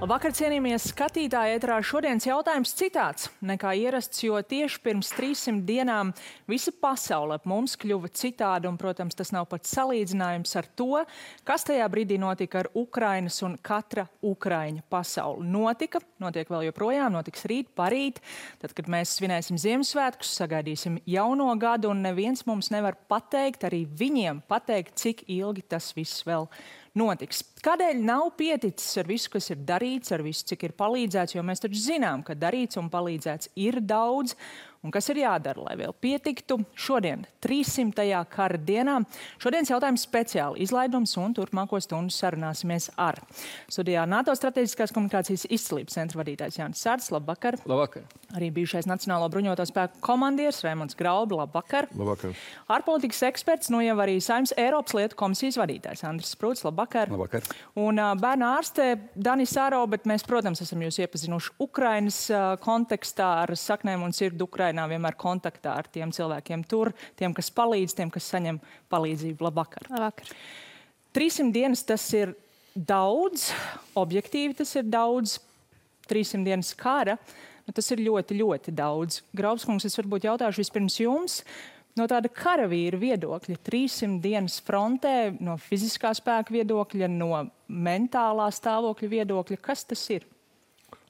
Labvakar, cienījamie skatītāji, ēterā šodienas jautājums citāds nekā ierasts, jo tieši pirms 300 dienām visa pasaule ap mums kļuva citāda, un, protams, tas nav pat salīdzinājums ar to, kas tajā brīdī notika ar Ukrainas un katra ukraiņa pasauli. Notiek vēl joprojām, notiks rīt, parīt, tad, kad mēs svinēsim Ziemassvētkus, sagaidīsim jauno gadu, un neviens mums nevar pateikt, arī viņiem pateikt, cik ilgi tas viss vēl notiks. Kādēļ nav pieticis ar visu, kas ir darīts, ar visu, cik ir palīdzēts, jo mēs taču zinām, ka darīts un palīdzēts ir daudz, un kas ir jādara, lai vēl pietiktu šodien, 300. kara dienā. Šodienas jautājums speciāli izlaidums, un turpmāko stundu sarunāsimies ar studijā NATO strateģiskās komunikācijas izcilības centra vadītājs Jānis Sārts. Labvakar. Labvakar. Arī bijušais Nacionālo bruņoto spēku komandieris Raimonds Graubi. Labvakar. Labvakar. Ārpolitikas eksperts, jau arī Saeimas Eiropas lietu komisijas vadītājs Andris Sprūts. Labvakar. Labvakar. Un bērnu ārste Danis Aro, bet mēs, protams, esam jūs iepazinuši Ukrainas kontekstā ar saknēm un sirdi Ukrainā, vienmēr kontaktā ar tiem cilvēkiem tur, tiem, kas palīdz, tiem, kas saņem palīdzību. Labvakar. Labvakar. 300 dienas tas ir daudz, objektīvi tas ir daudz, 300 dienas kara, tas ir ļoti, ļoti daudz. Graubskungs, es varbūt jautāšu vispirms jums, no tāda karavīra viedokļa, 300 dienas frontē, no fiziskā spēka viedokļa, no mentālā stāvokļa viedokļa, kas tas ir?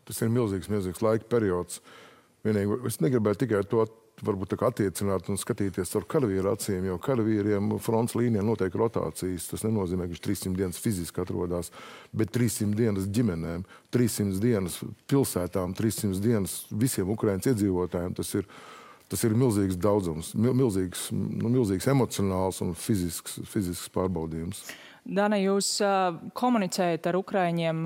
Tas ir milzīgs laika periods. Vienīgi, es negribētu tikai to varbūt attiecināt un skatīties ar karavīru acīm, jo karavīriem fronts līnijā notiek rotācijas. Tas nenozīmē, ka viņš 300 dienas fiziski atrodas, bet 300 dienas ģimenēm, 300 dienas pilsētām, 300 dienas visiem Ukrainas iedzīvotājiem. Tas ir milzīgs daudzums, milzīgs emocionāls un fizisks pārbaudījums. Dana, jūs komunicējat ar ukraiņiem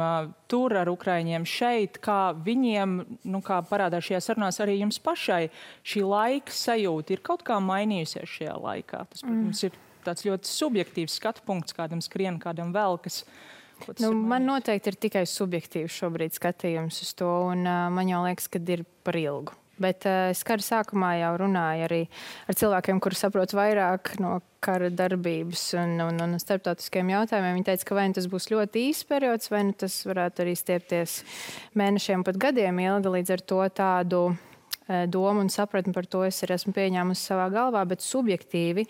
tur, ar ukraiņiem šeit, kā viņiem, kā parādās šajā sarunās, arī jums pašai šī laika sajūta ir kaut kā mainījusies šajā laikā. Tas, protams, ir tāds ļoti subjektīvs skatu punkts, kādam skrien, kādam velkas. Man noteikti ir tikai subjektīvs šobrīd skatījums uz to, un man jau liekas, ka ir par ilgu. Bet es kara sākumā jau runāju arī ar cilvēkiem, kuri saprot vairāk no kara darbības un starptautiskiem jautājumiem. Viņi teica, ka vai tas būs ļoti īsts periods, vai tas varētu arī stiepties mēnešiem, pat gadiem ilgi. Līdz ar to tādu domu un sapratni par to es arī esmu pieņēmusi savā galvā, bet subjektīvi,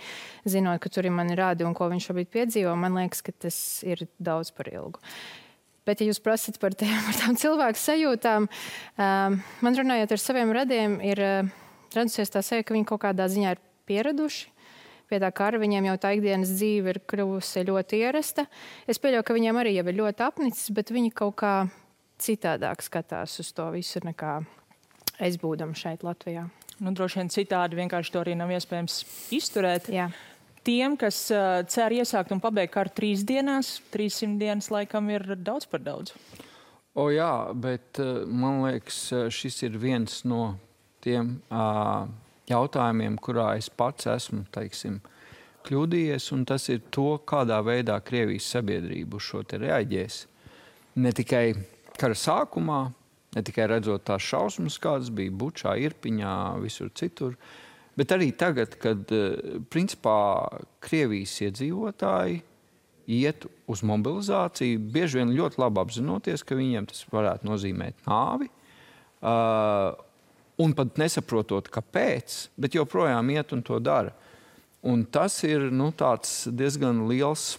zinot, ka tur ir mani rādi un ko viņš šobrīd piedzīvo, man liekas, ka tas ir daudz par ilgu. Bet, ja jūs prasat par tām cilvēku sajūtām, man runājot ar saviem radiem, ir radusies tā sajūta, ka viņi kaut kādā ziņā ir pieraduši pie tā kara. Viņiem jau tā ikdienas dzīve ir kļuvusi ļoti ierasta. Es pieļauju, ka viņiem arī jau ir ļoti apnicis, bet viņi kaut kā citādāk skatās uz to visu nekā es būdam šeit Latvijā. Droši vien citādi vienkārši to arī nav iespējams izturēt. Jā. Tiem, kas cer iesākt un pabeigt karu 3 dienās, 300 dienas laikam ir daudz par daudz. Jā, bet man liekas, šis ir viens no tiem jautājumiem, kurā es pats esmu, kļūdījies, un tas ir to, kādā veidā Krievijas sabiedrība uz šo te reaģēs. Ne tikai kara sākumā, ne tikai redzot tās šausmas, kādas bija Bučā, Irpiņā, visur citur, bet arī tagad, kad principā Krievijas iedzīvotāji iet uz mobilizāciju, bieži vien ļoti labi apzinoties, ka viņiem tas varētu nozīmēt nāvi, un pat nesaprotot, kāpēc, bet joprojām iet un to dara. Un tas ir tāds diezgan liels,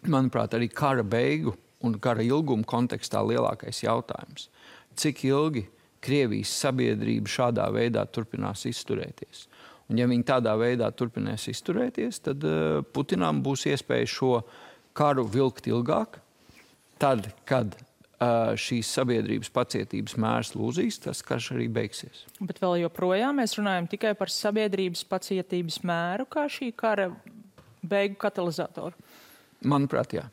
manuprāt, arī kara beigu un kara ilguma kontekstā lielākais jautājums. Cik ilgi Krievijas sabiedrība šādā veidā turpinās izturēties. Un ja viņi tādā veidā turpinās izturēties, tad Putinam būs iespēja šo karu vilkt ilgāk. Tad, kad šīs sabiedrības pacietības mērs lūzīs, tas karš arī beigsies. Bet vēl joprojām mēs runājam tikai par sabiedrības pacietības mēru, kā šī kara beigu katalizatoru? Manuprāt, jā.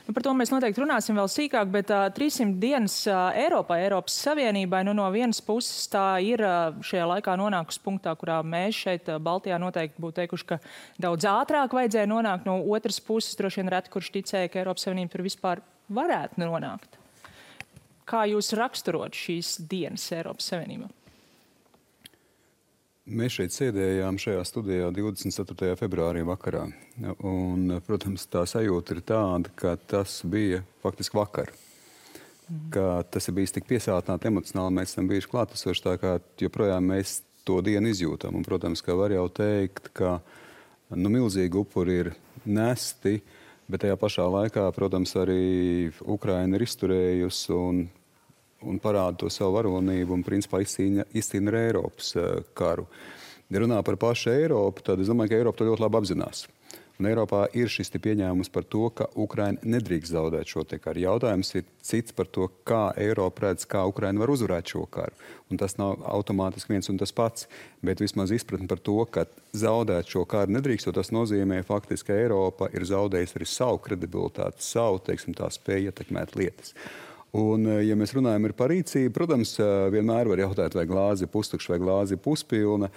Par to mēs noteikti runāsim vēl sīkāk, bet 300 dienas Eiropā, Eiropas Savienībai, no vienas puses tā ir šajā laikā nonākusi punktā, kurā mēs šeit Baltijā noteikti būtu teikuši, ka daudz ātrāk vajadzēja nonākt. No otras puses droši vien reti, kurš ticēja, ka Eiropas Savienība tur vispār varētu nonākt. Kā jūs raksturot šīs dienas Eiropas Savienībā? Mēs šeit sēdējām šajā studijā 24. februārī vakarā. Un, protams, tā sajūta ir tāda, ka tas bija faktiski vakar. ka tas ir bijis tik piesātināti emocionāli, mēs esam bijuši klātesoši, tā kā joprojām mēs to dienu izjūtam. Un, protams, ka var jau teikt, ka milzīgi upuri ir nesti, bet tajā pašā laikā, protams, arī Ukraina ir izturējusi un parāda to savu varonību un, principā, izcīna ar Eiropas karu. Ja runā par pašu Eiropu, tad es domāju, ka Eiropa to ļoti labi apzinās. Un Eiropā ir šis pieņēmums par to, ka Ukraina nedrīkst zaudēt šo karu. Jautājums ir cits par to, kā Eiropa redz, kā Ukraina var uzvarēt šo karu. Un tas nav automātiski viens un tas pats, bet vismaz izpratni par to, ka zaudēt šo karu nedrīkst, jo tas nozīmē faktiski, ka Eiropa ir zaudējusi arī savu kredibilitāti, savu, teiksim, tā spēju ietekmēt lietas. Un, ja mēs runājam par rīcību, protams, vienmēr var jautāt, vai glāze ir pustukša vai glāze ir puspilna.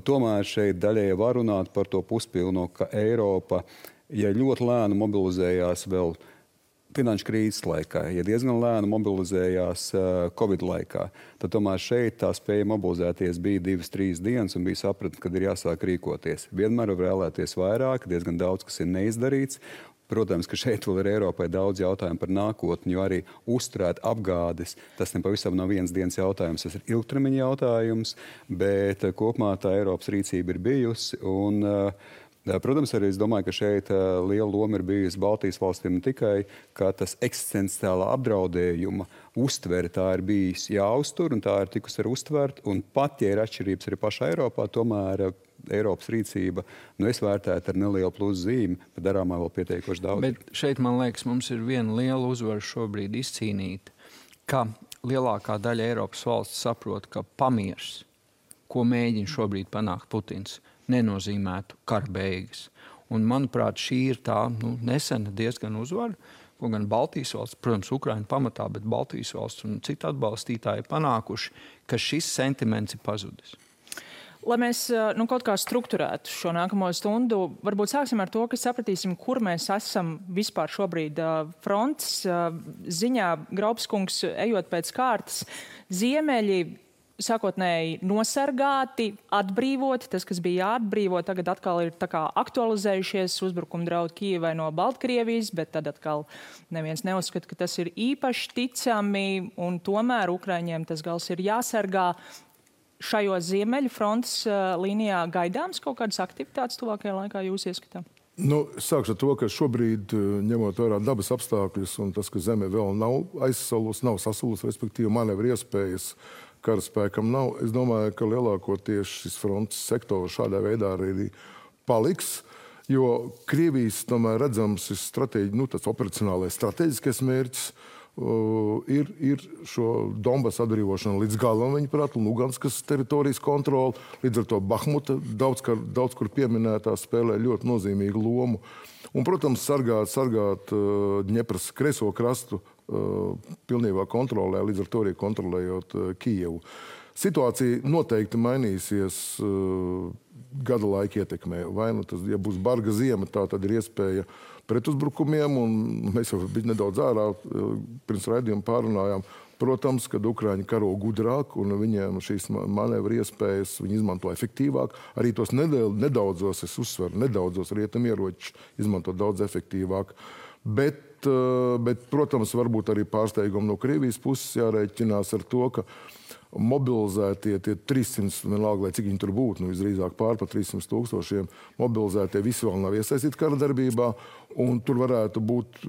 Tomēr šeit daļēji var runāt par to puspilno, ka Eiropa, ja ļoti lēni mobilizējās vēl finanšu krīzes laikā, ja diezgan lēni mobilizējās Covid laikā, tad tomēr šeit tā spēja mobilizēties bija 2-3 dienas un bija sapratni, kad ir jāsāk rīkoties. Vienmēr var vēlēties vairāk, diezgan daudz, kas ir neizdarīts. Protams, ka šeit vēl ir Eiropai daudz jautājumu par nākotni, jo arī uzturēt apgādes, tas nepavisam nav vienas dienas jautājums, tas ir ilgtermiņa jautājums, bet kopumā tā Eiropas rīcība ir bijusi. Un, protams, arī es domāju, ka šeit liela loma ir bijusi Baltijas valstīm ne tikai, ka tas eksistenciālā apdraudējuma uztvere tā ir bijis jāuztur un tā ir tikusi arī uztvert. Un pat, ja ir atšķirības arī pašā Eiropā, tomēr Eiropas rīcība, es vērtētu ar nelielu plusu zīmi, bet darāmā vēl pietiekoši daudz. Bet šeit, man liekas, mums ir viena liela uzvara šobrīd izcīnīta, ka lielākā daļa Eiropas valsts saprot, ka pamiers, ko mēģina šobrīd panākt Putins, nenozīmētu kara beigas. Un, manuprāt, šī ir tā nesena diezgan uzvara, ko gan Baltijas valsts, protams, Ukraina pamatā, bet Baltijas valsts un citu atbalstītāji panākuši, ka šis sentiments ir pazudis. Lai mēs kaut kā strukturētu šo nākamo stundu, varbūt sāksim ar to, ka sapratīsim, kur mēs esam vispār šobrīd frontes ziņā. Graupskungs, ejot pēc kārtas, ziemeļi sākotnēji nosargāti, atbrīvoti. Tas, kas bija jāatbrīvo, tagad atkal ir tā kā aktualizējušies uzbrukuma draudi Kijevai no Baltkrievijas, bet tad atkal neviens neuzskata, ka tas ir īpaši ticami, un tomēr Ukraiņiem tas gals ir jāsargā. Šajos ziemeļu frontes līnijā gaidāms kaut kādas aktivitātes tuvākajā laikā jūs ieskatām? Sākšu ar to, ka šobrīd, ņemot vērā dabas apstākļus un tas, ka zeme vēl nav aizsalusi, nav sasulusi, respektīvi manevru iespējas karaspēkam nav, es domāju, ka lielākoties šis frontes sektors šādā veidā arī paliks, jo Krievijas tomēr redzams tas operacionālais strateģiskais mērķis ir šo Donbasu atbrīvošanu līdz galam, viņuprāt, un Luganskas teritorijas kontroli. Līdz ar to Bahmuta daudz kur pieminētā spēlē ļoti nozīmīgu lomu. Un, protams, sargāt Dņepras kreiso krastu pilnībā kontrolē, līdz ar to arī kontrolējot Kijevu. Situācija noteikti mainīsies gada laika ietekmē. Vai tas, ja būs barga ziema, tā tad ir iespēja pretuzbrukumiem, un mēs jau bija nedaudz ārā pirms raidījuma pārunājām. Protams, kad Ukraiņi karo gudrāk un viņiem šīs manevru iespējas viņi izmanto efektīvāk, arī tos nedaudzos, es uzsveru, nedaudzos rietumieročus izmanto daudz efektīvāk. Bet, protams, varbūt arī pārsteigumi no Krievijas puses jārēķinās ar to, ka mobilizētie tie 300, vienalga, lai cik viņi tur būtu, visdrīzāk pār 300 000 mobilizētie visi vēl nav iesaistīti kara darbībā, un tur varētu būt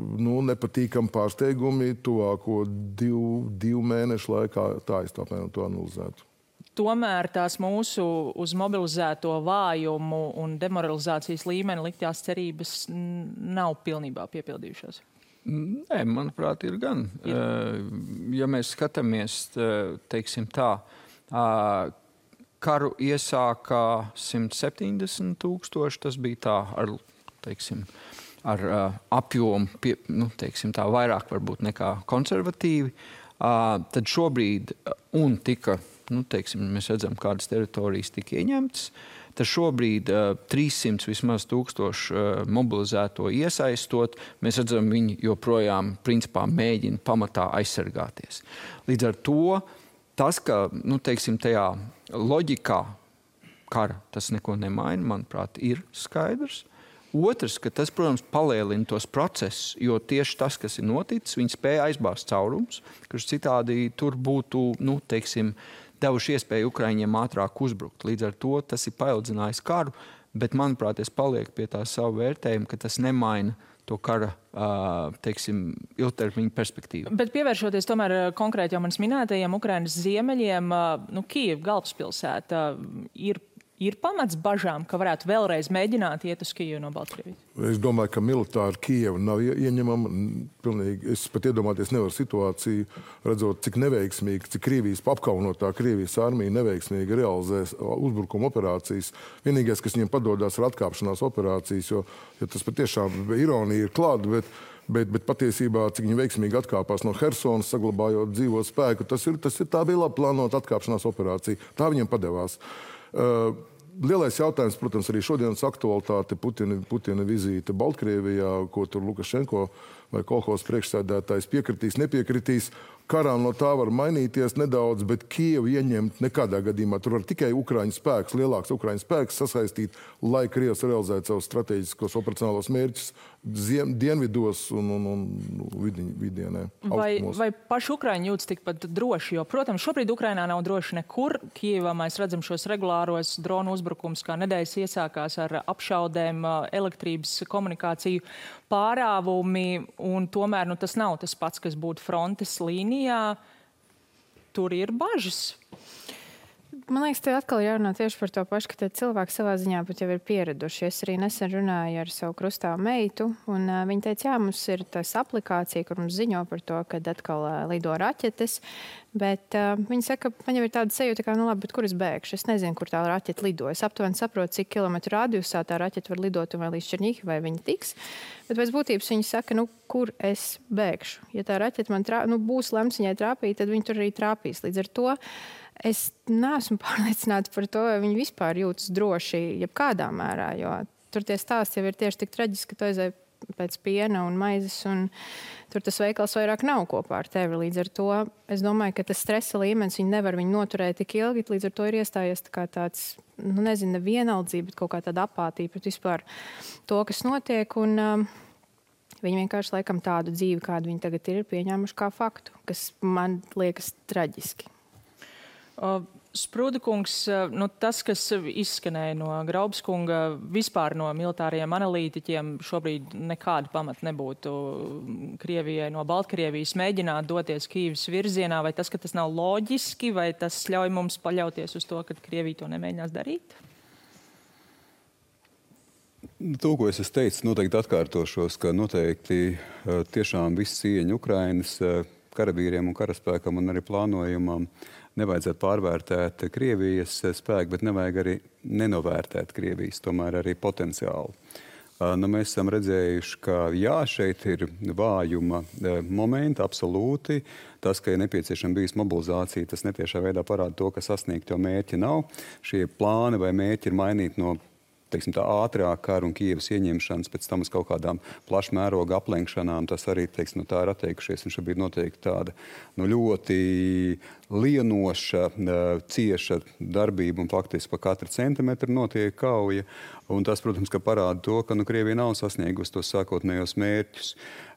nepatīkami pārsteigumi tuvāko divu mēnešu laikā, tā es tāpēc to analizētu. Tomēr tās mūsu uz mobilizēto vājumu un demoralizācijas līmeni liktās cerības nav pilnībā piepildījušās. Nē, manuprāt, ir gan. Ja mēs skatāmies, teiksim tā, karu iesākā 170 000, tas bija tā ar apjomu, teiksim tā, vairāk varbūt nekā konservatīvi. Tad šobrīd, un tika, mēs redzam, kādas teritorijas tika ieņemtas, tad šobrīd 300 vismaz 1000 mobilizēto iesaistot, mēs redzam, viņi joprojām principā mēģina pamatā aizsargāties. Līdz ar to tas, ka, tajā loģikā kara tas neko nemaina, manuprāt, ir skaidrs. Otrs, ka tas, protams, palielina tos procesus, jo tieši tas, kas ir noticis, viņi spēja aizbāzt caurums, kurš citādi tur būtu, devuši iespēju Ukraiņiem ātrāk uzbrukt. Līdz ar to tas ir paildzinājis karu, bet, manuprāt, es palieku pie tā savu vērtējumu, ka tas nemaina to kara, ilgtermiņa perspektīvu. Bet pievēršoties tomēr konkrēti jau manis minētajiem Ukrainas ziemeļiem, Kijeva galvaspilsēta ir pamats bažām, ka varētu vēlreiz mēģināt iet uz Kijevu no Baltkrievijas? Es domāju, ka militāri Kijeva nav ieņemama. Pilnīgi, es pat iedomāties nevaru situāciju, redzot, cik neveiksmīgi, cik Krievijas apkaunotā Krievijas armija neveiksmīgi realizēs uzbrukuma operācijas. Vienīgais, kas viņiem padodās, ir atkāpšanās operācijas, jo tas patiešām ironija ir klāta, bet patiesībā, cik viņi veiksmīgi atkāpās no Hersonas, saglabājot dzīvo spēku, tā bija labi plānota atkāpšanās operācija. Tā viņiem padevās. Lielais jautājums, protams, arī šodienas aktualitāte, Putina vizīte Baltkrievijā, ko tur Lukašenko vai kolhozas priekšsēdētājs piekritīs, nepiekritīs. Karā no tā var mainīties nedaudz, bet Kijevu ieņemt nekādā gadījumā. Tur var tikai Ukraiņu spēks, lielāks Ukraiņu spēks sasaistīt, lai Krievs realizētu savus strateģiskos operacionālos mērķus dienvidos un vidienē. Vai paši Ukraiņi jūtas tikpat droši? Jo, protams, šobrīd Ukrainā nav droši nekur. Kijevā mēs redzam šos regulāros dronu uzbrukums, kā nedēļas iesākās ar apšaudēm, elektrības komunikāciju pārāvumi, un tomēr tas nav tas pats, kas būtu frontes līnijā. Tur ir bažas. Man liekas, te atkal jārunā tieši par to pašu, ka cilvēki savā ziņā pat jau ir pieraduši. Es arī nesen runāju ar savu krustāvu meitu, un viņa teica, jā, mums ir tas aplikācija, kur mums ziņo par to, kad atkal lido raķetes, bet viņa saka, man jau ir tāda sajūta, ka, labi, bet kur es bēgšu? Es nezinu, kur tā raķeta lido. Es aptuveni saprotu, cik kilometru radiusā tā raķeta var lidot un vai līdz Černihivai viņa tiks. Bet pēc būtības viņa saka, kur es bēgšu? Ja tā raķeta man būs lemts viņai trāpīt, tad viņa tur arī trāpīs. Līdz ar to es neesmu pārliecināta par to, vai viņi vispār jūtas droši jebkādā mērā, jo tur tie stāsti jau ir tieši tik traģiski, ka tu aizēji pēc piena un maizes, un tur tas veikals vairāk nav kopā ar tevi. Līdz ar to es domāju, ka tas stresa līmenis, viņi nevar viņu noturēt tik ilgi, līdz ar to ir iestājies tā kā tāds, nevienaldzība, bet kaut kā tāda apātija pret vispār to, kas notiek, un viņi vienkārši laikam tādu dzīvi, kādu viņi tagad ir pieņēmuši kā faktu, kas man liekas traģiski. Sprūda kungs, tas, kas izskanēja no Graubas kunga, vispār no militāriem analītiķiem, šobrīd nekāda pamata nebūtu Krievijai no Baltkrievijas mēģināt doties Kijevas virzienā, vai tas, ka tas nav loģiski, vai tas ļauj mums paļauties uz to, ka Krievija to nemēģinās darīt? To, ko es teicu, noteikti atkārtošos, ka noteikti tiešām viss cieņa Ukrainas karavīriem un karaspēkam un arī plānojumam nevajadzētu pārvērtēt Krievijas spēku, bet nevajag arī nenovērtēt Krievijas, tomēr arī potenciālu. Mēs esam redzējuši, ka jā, šeit ir vājuma momenti, absolūti. Tas, ka ir nepieciešama bijis mobilizācija, tas netiešā veidā parāda to, ka sasniegt jau mērķi nav. Šie plāni vai mērķi ir mainīti no tā ātrāk kara un Kijevas ieņemšanas, pēc tam uz kaut kādām plašmēroga aplenkšanām, tas arī, tā ir atteikušies. Un šobrīd notiek tāda ļoti lienoša, cieša darbība un faktiski pa katru centimetru notiek kauja. Un tas, protams, ka parāda to, ka Krievija nav sasniegusi tos sākotnējos mērķus.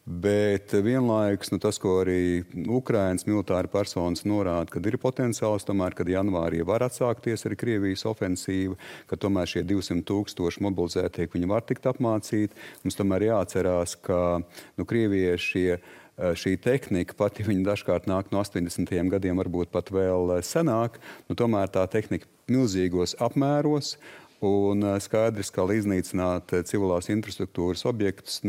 Bet vienlaikus tas, ko arī Ukrainas militāri personas norāda, kad ir potenciāls, tomēr, kad janvārī var atsākties arī Krievijas ofensīva, ka tomēr šie 200,000 mobilizētie, viņi var tikt apmācīti. Mums tomēr jāatcerās, ka Krievijai šī tehnika, pat ja viņa dažkārt nāk no 80. gadiem, varbūt pat vēl senāk, tomēr tā tehnika milzīgos apmēros. Un skaidrs, kā iznīcināt civilās infrastruktūras objektus,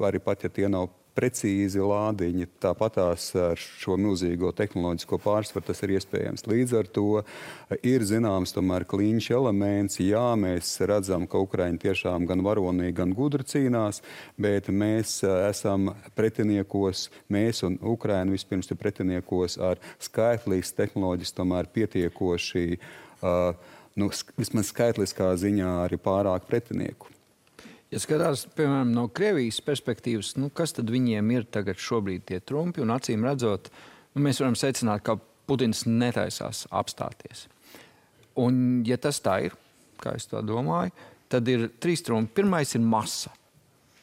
arī pat, ja tie nav precīzi lādiņi, tāpatās ar šo milzīgo tehnoloģisko pārsvaru tas ir iespējams. Līdz ar to ir zināms tomēr kliņš elements. Jā, mēs redzam, ka Ukraiņi tiešām gan varonīgi, gan gudri cīnās, bet mēs esam pretiniekos, mēs un Ukraina vispirms ir pretiniekos ar skaitlīs tehnoloģijas tomēr pietiekoši vismaz skaitliskā ziņā arī pārāk pretinieku. Ja skatās, piemēram, no Krievijas perspektīvas, kas tad viņiem ir tagad šobrīd tie trumpi, un acīm redzot, mēs varam secināt, ka Putins netaisās apstāties. Un ja tas tā ir, kā es to domāju, tad ir 3 trumpi. Pirmais ir masa.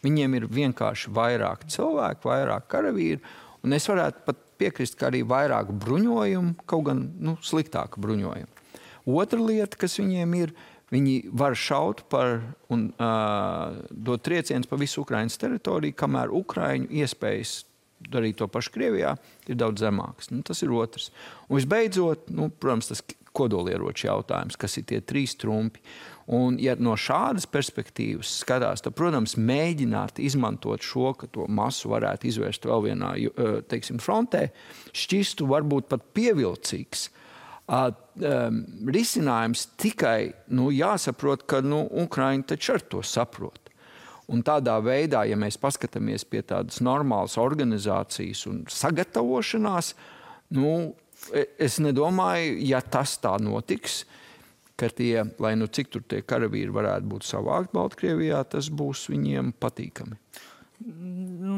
Viņiem ir vienkārši vairāk cilvēku, vairāk karavīru, un es varētu pat piekrist, ka arī vairāk bruņojumu, kaut gan sliktāku bruņojumu. Otra lieta, kas viņiem ir, viņi var šaut un dot triecienus pa visu Ukrainas teritoriju, kamēr Ukraiņu iespējas darīt to pašu Krievijā ir daudz zemāks. Tas ir otrs. Un visbeidzot, protams, tas kodolieroču jautājums, kas ir tie 3 trumpi. Un, ja no šādas perspektīvas skatās, tad, protams, mēģināt izmantot šo, ka to masu varētu izvērst vēl vienā, frontē, šķistu varbūt pat pievilcīgs. Risinājums tikai, jāsaprot, ka, Ukraiņi taču ar to saprot. Un tādā veidā, ja mēs paskatāmies pie tādas normālas organizācijas un sagatavošanās, es nedomāju, ja tas tā notiks, ka tie, lai cik tur tie karavīri varētu būt savākt Baltkrievijā, tas būs viņiem patīkami.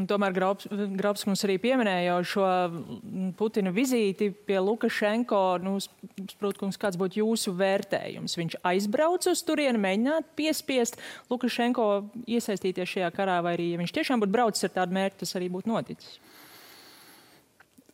Tomēr Grabs mums arī pieminēja jau šo Putina vizīti pie Lukašenko. Sprūtkungs, kāds būtu jūsu vērtējums? Viņš aizbrauc uz turieni, mēģināt piespiest Lukašenko iesaistīties šajā karā, vai arī, ja viņš tiešām būtu braucis ar tādu mērķi, tas arī būtu noticis?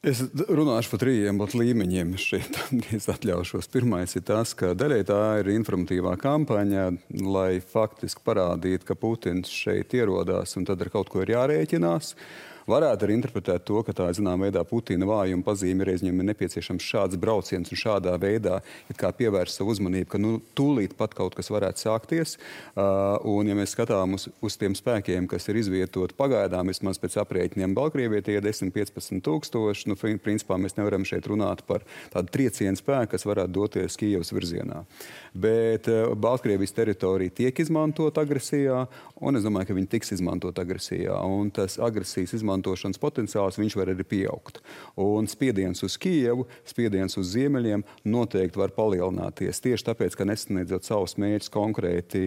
Es runāšu par 3 līmeņiem šeit, es atļaušos. Pirmais ir tas, ka daļai tā ir informatīvā kampaņa, lai faktiski parādītu, ka Putins šeit ierodās un tad ar kaut ko ir jārēķinās. Varētu arī interpretēt to, ka tā, zinām, veidā Putina vājuma pazīme reiz viņam ir nepieciešams šāds brauciens un šādā veidā kā pievērst savu uzmanību, ka tūlīt pat kaut kas varētu sākties. Un ja mēs skatām uz tiem spēkiem, kas ir izvietoti pagaidām, vismaz pēc aprēķiniem Baltkrievijai, tie 10-15 tūkstoši, principā mēs nevaram šeit runāt par tādu triecienu spēku, kas varētu doties Kijevas virzienā. Bet Baltkrievijas teritorija tiek izmantot agresijā, un es domāju, ka viņi tiks izmantot agresijā. Un tas agresijas izmantošanas potenciāls viņš var arī pieaugt. Un spiediens uz Kijevu, spiediens uz ziemeļiem noteikti var palielināties. Tieši tāpēc, ka nesasniedzot savus mērķus konkrēti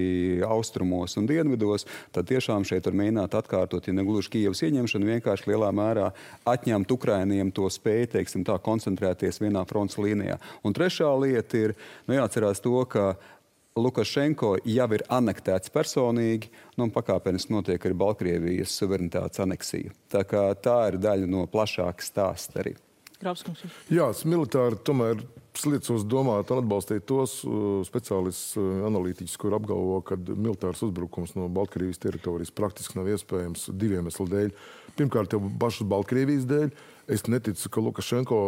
austrumos un dienvidos, tad tiešām šeit var mēģināt atkārtot, ja negluži Kijevas ieņemšanu, vienkārši lielā mērā atņemt Ukrainiem to spēju, teiksim tā, koncentrēties vienā fronts līnijā. Un trešā lieta ir, jāatcerās to, ka Lukašenko jau ir anektēts personīgi, un pakāpeniski notiek arī Baltkrievijas suverenitātes aneksija. Tā ir daļa no plašākas stāsta arī. Grabskungs. Jā, militāri tomēr liecos domāt un atbalstīt tos speciālistus, analītiķus, kur apgalvo, ka militārs uzbrukums no Baltkrievijas teritorijas praktiski nav iespējams 2 iemeslu dēļ. Pirmkārt, jau pašas Baltkrievijas dēļ. Es neticu, ka Lukašenko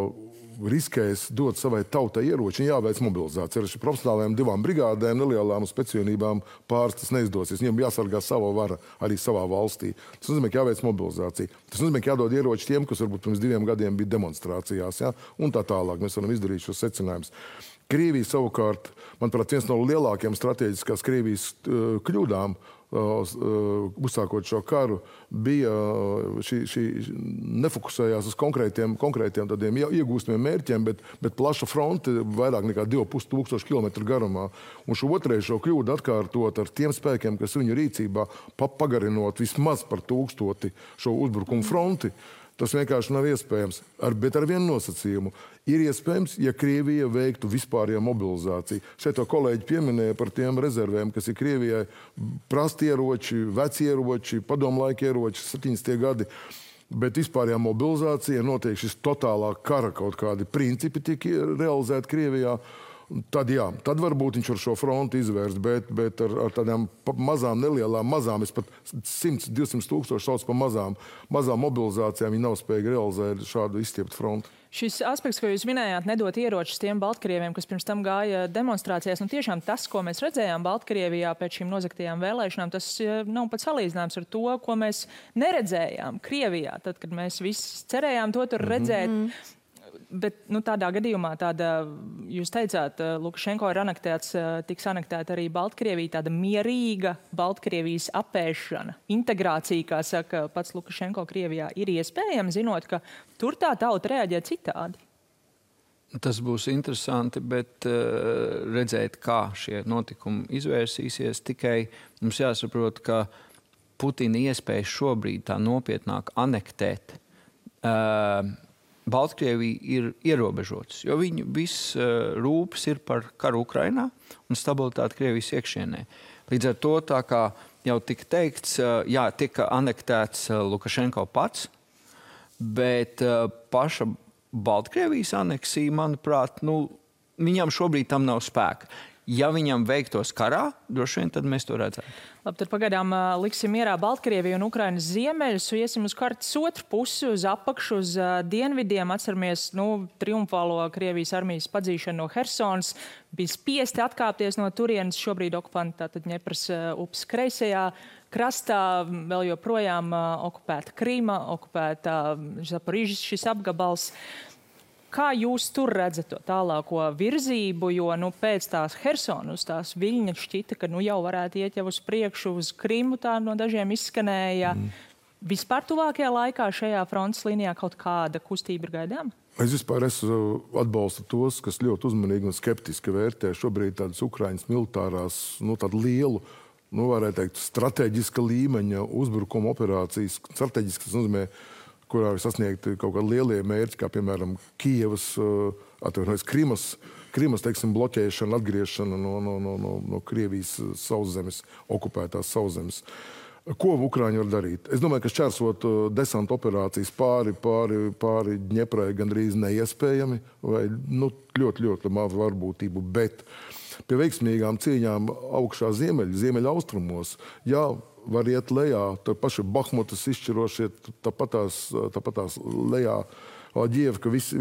riskēs dot savai tautai ieroči, jāveic mobilizācija. Ar šīm profesionālajām 2 brigādēm, nelielām un speciālībām pāris tas neizdosies. Viņiem jāsargā sava vara arī savā valstī. Tas nozīmē, ka jāveic mobilizācija. Tas nozīmē, ka jādod ieroči tiem, kas varbūt pirms 2 gadiem bija demonstrācijās, un tā tālāk. Mēs varam izdarīt šos secinājumus. Krievija savukārt, manuprāt, viens no lielākajiem strateģiskās Krievijas kļūdām, uzsākot šo karu, bija šī nefokusējās uz konkrētiem tādiem iegūstamiem mērķiem, bet plaša fronte vairāk nekā 2500 km garumā. Un šo otrais kļūdu atkārtot ar tiem spēkiem, kas viņu rīcībā, pagarinot vismaz par 1000 šo uzbrukumu fronti. Tas vienkārši nav iespējams, bet ar vienu nosacījumu. Ir iespējams, ja Krievija veiktu vispārējo mobilizāciju. Šeit to kolēģi pieminēja par tiem rezervēm, kas ir Krievijai prasti ieroči, veci ieroči, padomlaika ieroči, 70. gadi. Bet vispārējā mobilizācija notiek šis totālā kara kaut kādi principi tiek realizēti Krievijā. Tad varbūt viņš var šo fronti izvērst, bet ar tādām mazām, es pat 100-200 tūkstoši sauc par mazām mobilizācijām, viņi nav spējīgi realizēt šādu izstieptu fronti. Šis aspekts, ko jūs minējāt, nedot ieročus tiem Baltkrieviem, kas pirms tam gāja demonstrācijās, tiešām tas, ko mēs redzējām Baltkrievijā pēc šīm nozagtajām vēlēšanām, tas nav pat salīdzināms ar to, ko mēs neredzējām Krievijā, tad, kad mēs visi cerējām to tur redzēt. Bet tādā gadījumā, jūs teicāt, Lukašenko ir tiks anektēta arī Baltkrievija, tāda mierīga Baltkrievijas apēšana, integrācija, kā saka pats Lukašenko Krievijā, ir iespējama, zinot, ka tur tā tauta reaģē citādi. Tas būs interesanti, bet redzēt, kā šie notikumi izvērsīsies, tikai mums jāsaprot, ka Putina iespējas šobrīd tā nopietnāk anektēt Baltkrievija ir ierobežotas, jo viņu viss rūpes ir par karu Ukrainā un stabilitāti Krievijas iekšienē. Līdz ar to, tā kā jau tika teikts, jā, tika anektēts Lukašenko pats, bet paša Baltkrievijas aneksija, manuprāt, viņam šobrīd tam nav spēka. Ja viņam veiktos karā, droši vien tad mēs to redzētu. Labi, tad pagaidām liksim mierā Baltkrieviju un Ukrainas ziemeļus, iesim uz kartas otru pusi, uz apakšu, uz dienvidiem. Atceramies, triumfālo Krievijas armijas padzīšanu no Hersonas. Bija spiesti atkāpties no turienes, šobrīd okupanti tātad Ņepras upes kreisajā krastā, vēl joprojām okupēta Krīma, okupēta Zaporižas šis apgabals. Kā jūs tur redzat to tālāko virzību, jo pēc tās Hersonas, tās Viļņa šķita, ka jau varētu iet jau uz priekšu, uz Krimu tā no dažiem izskanēja. Vispār tuvākajā laikā šajā frontes līnijā kaut kāda kustība ir gaidām? Es vispār atbalstu tos, kas ļoti uzmanīgi un skeptiski vērtē šobrīd tādas Ukrainas militārās, tādu lielu, varētu teikt, strateģiska līmeņa uzbrukuma operācijas. Strateģiski tas nozīmē, kurā ir sasniegti kaut kādi lielie mērķi, kā piemēram Kijevas, Krimas, teiksim, bloķēšana, atgriešana no Krievijas sauszemes, okupētās sauszemes. Ko Ukraiņi var darīt? Es domāju, ka šķērsot desanta operācijas pāri Ņeprai gandrīz neiespējami, vai ļoti mazu varbūtību, bet pie veiksmīgām cīņām augšā ziemeļa austrumos, var iet lejā, tā paši Bahmutas izšķirošie, tāpatās lejā, Ģievka, visi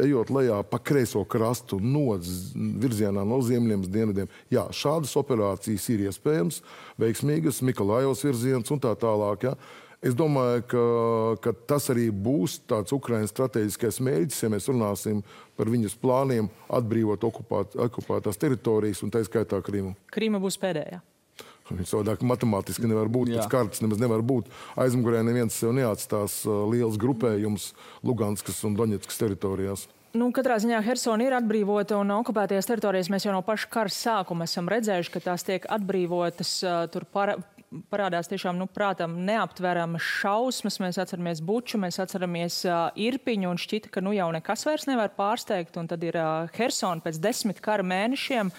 ejot lejā pa kreiso krastu virzienā no ziemeļiem uz dienvidiem. Jā, šādas operācijas ir iespējams, veiksmīgas, Mikolājevas virziens un tā tālāk. Ja. Es domāju, ka tas arī būs tāds Ukrainas strateģiskais mērķis, ja mēs runāsim par viņas plāniem atbrīvot okupētās teritorijas un tā skaitā Krimu. Krima būs pēdējā. Savādāk matemātiski nevar būt, pēc kartas nemaz nevar būt. Aizmugurē neviens sev neatstās liels grupējums Luganskas un Doņetskas teritorijās. Katrā ziņā Hersona ir atbrīvota un okupētajās teritorijas mēs jau no paša kara sākuma esam redzējuši, ka tās tiek atbrīvotas. Tur parādās tiešām, prātam, neaptveramas šausmas. Mēs atceramies Buču, mēs atceramies Irpiņu un šķita, ka jau nekas vairs nevar pārsteigt. Un tad ir Hersona pēc 10 kara mēnešiem.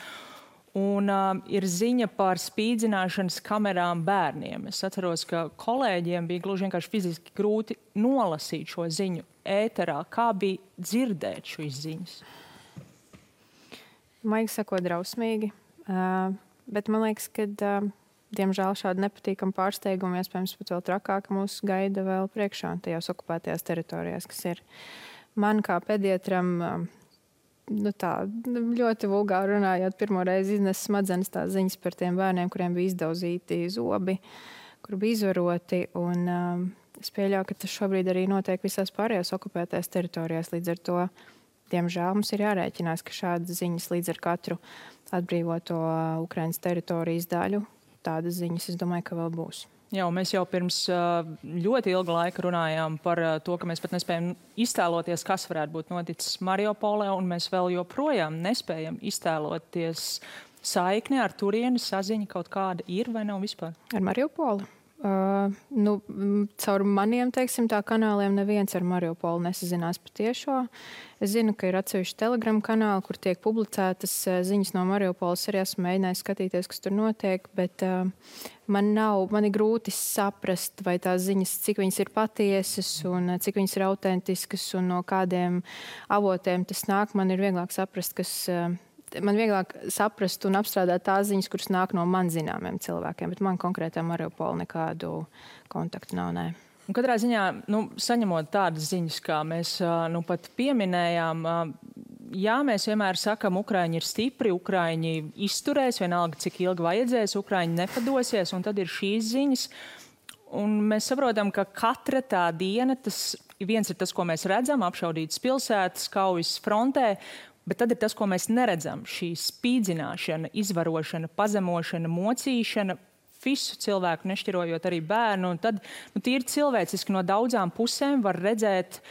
Un ir ziņa par spīdzināšanas kamerām bērniem. Es atceros, ka kolēģiem bija gluži vienkārši fiziski grūti nolasīt šo ziņu ēterā. Kā bija dzirdēt šīs ziņas? Maigi sakot, drausmīgi. Bet man liekas, ka diemžēl šādi nepatīkami pārsteigumi, iespējams pat vēl trakāk, mūs gaida vēl priekšā tajās okupētajās teritorijās, kas ir man kā pediatram ļoti vulgāri runājot, pirmo reizi iznes smadzenes tās ziņas par tiem bērniem, kuriem bija izdauzīti zobi, kur bija izvaroti. Un es pieļauju, ka tas šobrīd arī notiek visās pārējās okupētajās teritorijās. Līdz ar to, diemžēl, mums ir jārēķinās, ka šādas ziņas līdz ar katru atbrīvoto Ukrainas teritorijas daļu, tādas ziņas, es domāju, ka vēl būs. Jā, mēs jau pirms ļoti ilga laika runājām par to, ka mēs pat nespējam iztēloties, kas varētu būt noticis Mariupolē, un mēs vēl joprojām nespējam iztēloties saikni ar turieni, saziņa kaut kāda ir vai nav vispār? Ar Mariupoli? Caur maniem, tā kanāliem neviens ar Mariupolu nesazinās patiešo. Es zinu, ka ir atsevišķi Telegram kanāli, kur tiek publicētas ziņas no Mariupoles. Arī esmu mēģinājis skatīties, kas tur notiek, bet man ir grūti saprast, vai tās ziņas, cik viņas ir patiesas un cik viņas ir autentiskas un no kādiem avotiem tas nāk. Man ir vieglāk saprast, man vieglāk saprast un apstrādāt tās ziņas, kuras nāk no man zināmiem cilvēkiem, bet man konkrētā Mariupola nekādu kontaktu nav, nē. Un katrā ziņā, saņemot tādas ziņas, kā mēs pat pieminējām, jā, mēs vienmēr sakam, Ukraiņi ir stipri, Ukraiņi izturēs, vienalga, cik ilgi vajadzēs, Ukraiņi nepadosies, un tad ir šīs ziņas. Un mēs saprotam, ka katra tā diena, viens ir tas, ko mēs redzam, apšaudītas pilsētas, kaujas frontē, bet tad ir tas, ko mēs neredzam. Šī spīdzināšana, izvarošana, pazemošana, mocīšana, visu cilvēku, nešķirojot arī bērnu. Un tad tīri cilvēciski no daudzām pusēm var redzēt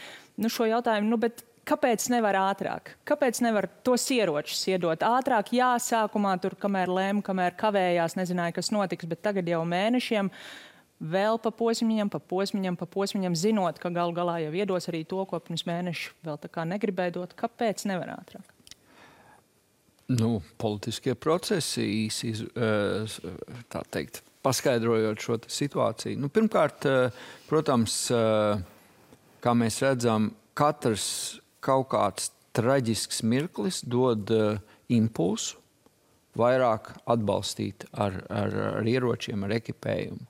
šo jautājumu, bet kāpēc nevar ātrāk? Kāpēc nevar tos ieročus iedot ātrāk? Jā, sākumā tur, kamēr lēma, kamēr kavējās, nezināja, kas notiks, bet tagad jau mēnešiem vēl pa posmiņam, zinot, ka galu galā jau iedos arī to, ko pirms mēneša vēl tā kā negribēja dot. Kāpēc nevar ātrāk? Politiskie procesi īsi, tā teikt, paskaidrojot šo situāciju. Pirmkārt, protams, kā mēs redzam, katrs kaut kāds traģisks mirklis dod impulsu vairāk atbalstīt ar ieročiem, ar ekipējumu.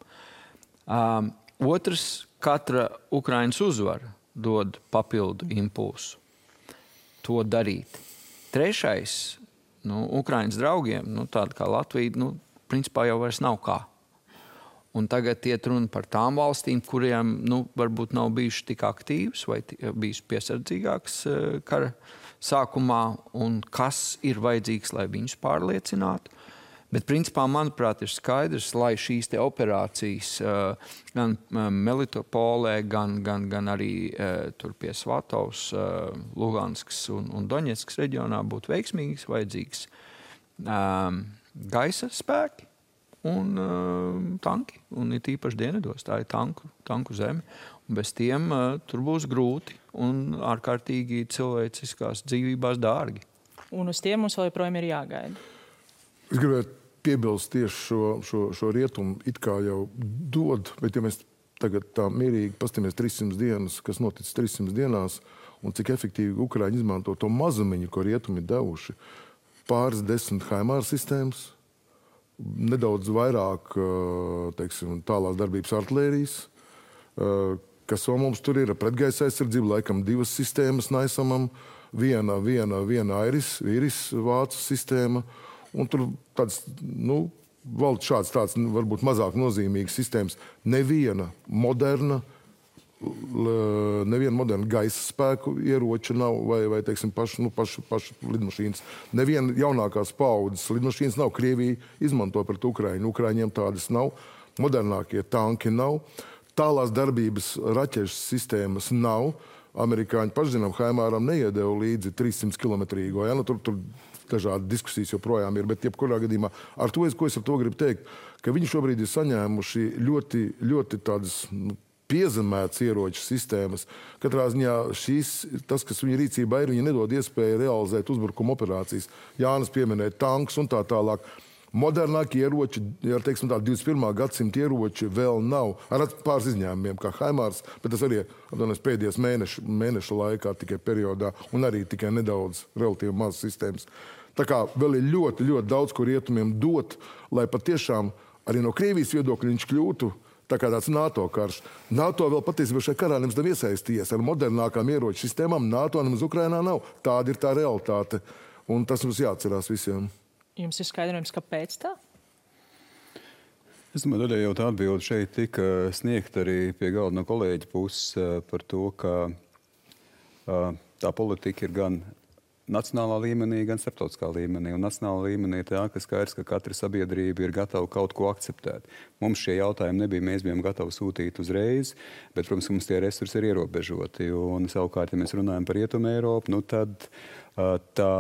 Otrs, katra Ukrainas uzvara dod papildu impulsu to darīt. Trešais, Ukrainas draugiem, tāda kā Latvija, principā jau vairs nav kā. Un tagad iet runa par tām valstīm, kuriem, varbūt nav bijuši tik aktīvas vai bijuši piesardzīgākas kara sākumā, un kas ir vajadzīgs, lai viņus pārliecinātu. Bet, principā, manuprāt, ir skaidrs, lai šīs te operācijas gan Melitopolē, gan arī tur pie Svatovs, Luganskas un Doņetskas reģionā būtu veiksmīgas, vajadzīgs gaisa spēki un tanki. Un ir tīpaši dienvidos, tā ir tanku zeme. Un bez tiem tur būs grūti un ārkārtīgi cilvēciskās dzīvībās dārgi. Un uz tiem mums vēl joprojām ir jāgaida. Es gribētu piebilst tieši šo rietumu it kā jau dod, bet ja mēs tagad tā mierīgi pastamies 300 dienas, kas noticis 300 dienās, un cik efektīvi Ukraiņi izmanto to mazumiņu, ko rietumi ir devuši, pāris 10 HIMARS sistēmas, nedaudz vairāk, teiksim, tālās darbības artilērijas, kas vēl mums tur ir pretgaisa aizsardzība, laikam 2 sistēmas Naisamam, viena Iris vācu sistēma, un tur tāds, valda šāds tāds, varbūt mazāk nozīmīgas sistēmas. Neviena moderna gaisa spēku ieroča nav, vai teiksim, pašu lidmašīnas. Neviena jaunākās paaudzes lidmašīnas nav. Krievija izmanto pret Ukraiņu. Ukraiņiem tādas nav. Modernākie tanki nav. Tālās darbības raķešu sistēmas nav. Amerikāņi pašzinām, HIMARam neiedeva līdzi 300 kilometrīgo. Ja? Tur dažādi diskusijas joprojām ir, bet jebkurā gadījumā ko es ar to gribu teikt, ka viņi šobrīd ir saņēmuši ļoti, ļoti tādas piezemētas ieroču sistēmas. Katrā ziņā tas, kas viņa rīcībā ir, viņi nedod iespēju realizēt uzbrukuma operācijas. Jānis pieminēja tanks un tā tālāk. Modernākie ieroči, teiksim tā, 21. gadsimta ieroči vēl nav. Ar pāris izņēmumiem, kā HIMARS, bet tas arī pēdējos mēneša laikā tikai periodā un arī tikai nedaudz relatīvi maz sistēmas. Tā kā vēl ir ļoti, ļoti daudz, ko rietumiem dot, lai patiešām arī no Krievijas viedokļa viņš kļūtu tā kā tāds NATO karš. NATO vēl patiesībā šajā karā nemaz nav iesaistījies ar modernākām ieroču sistēmām. NATO nemaz Ukrainā nav. Tāda ir tā realitāte. Un tas mums jāatcerās visiem. Jums ir skaidrojums, kāpēc tā? Es domāju, daļai jau tā atbilde šeit tika sniegta arī pie galda no kolēģa puses par to, ka tā politika ir gan nacionālā līmenī, gan starptautiskā līmenī. Un nacionālā līmenī ir tā, ka skaidrs, ka katra sabiedrība ir gatava kaut ko akceptēt. Mums šie jautājumi nebija, mēs bijām gatavi sūtīt uzreiz, bet, protams, mums tie resursi ir ierobežoti. Un savukārt, ja mēs runājam par Rietumu Eiropu, tad tā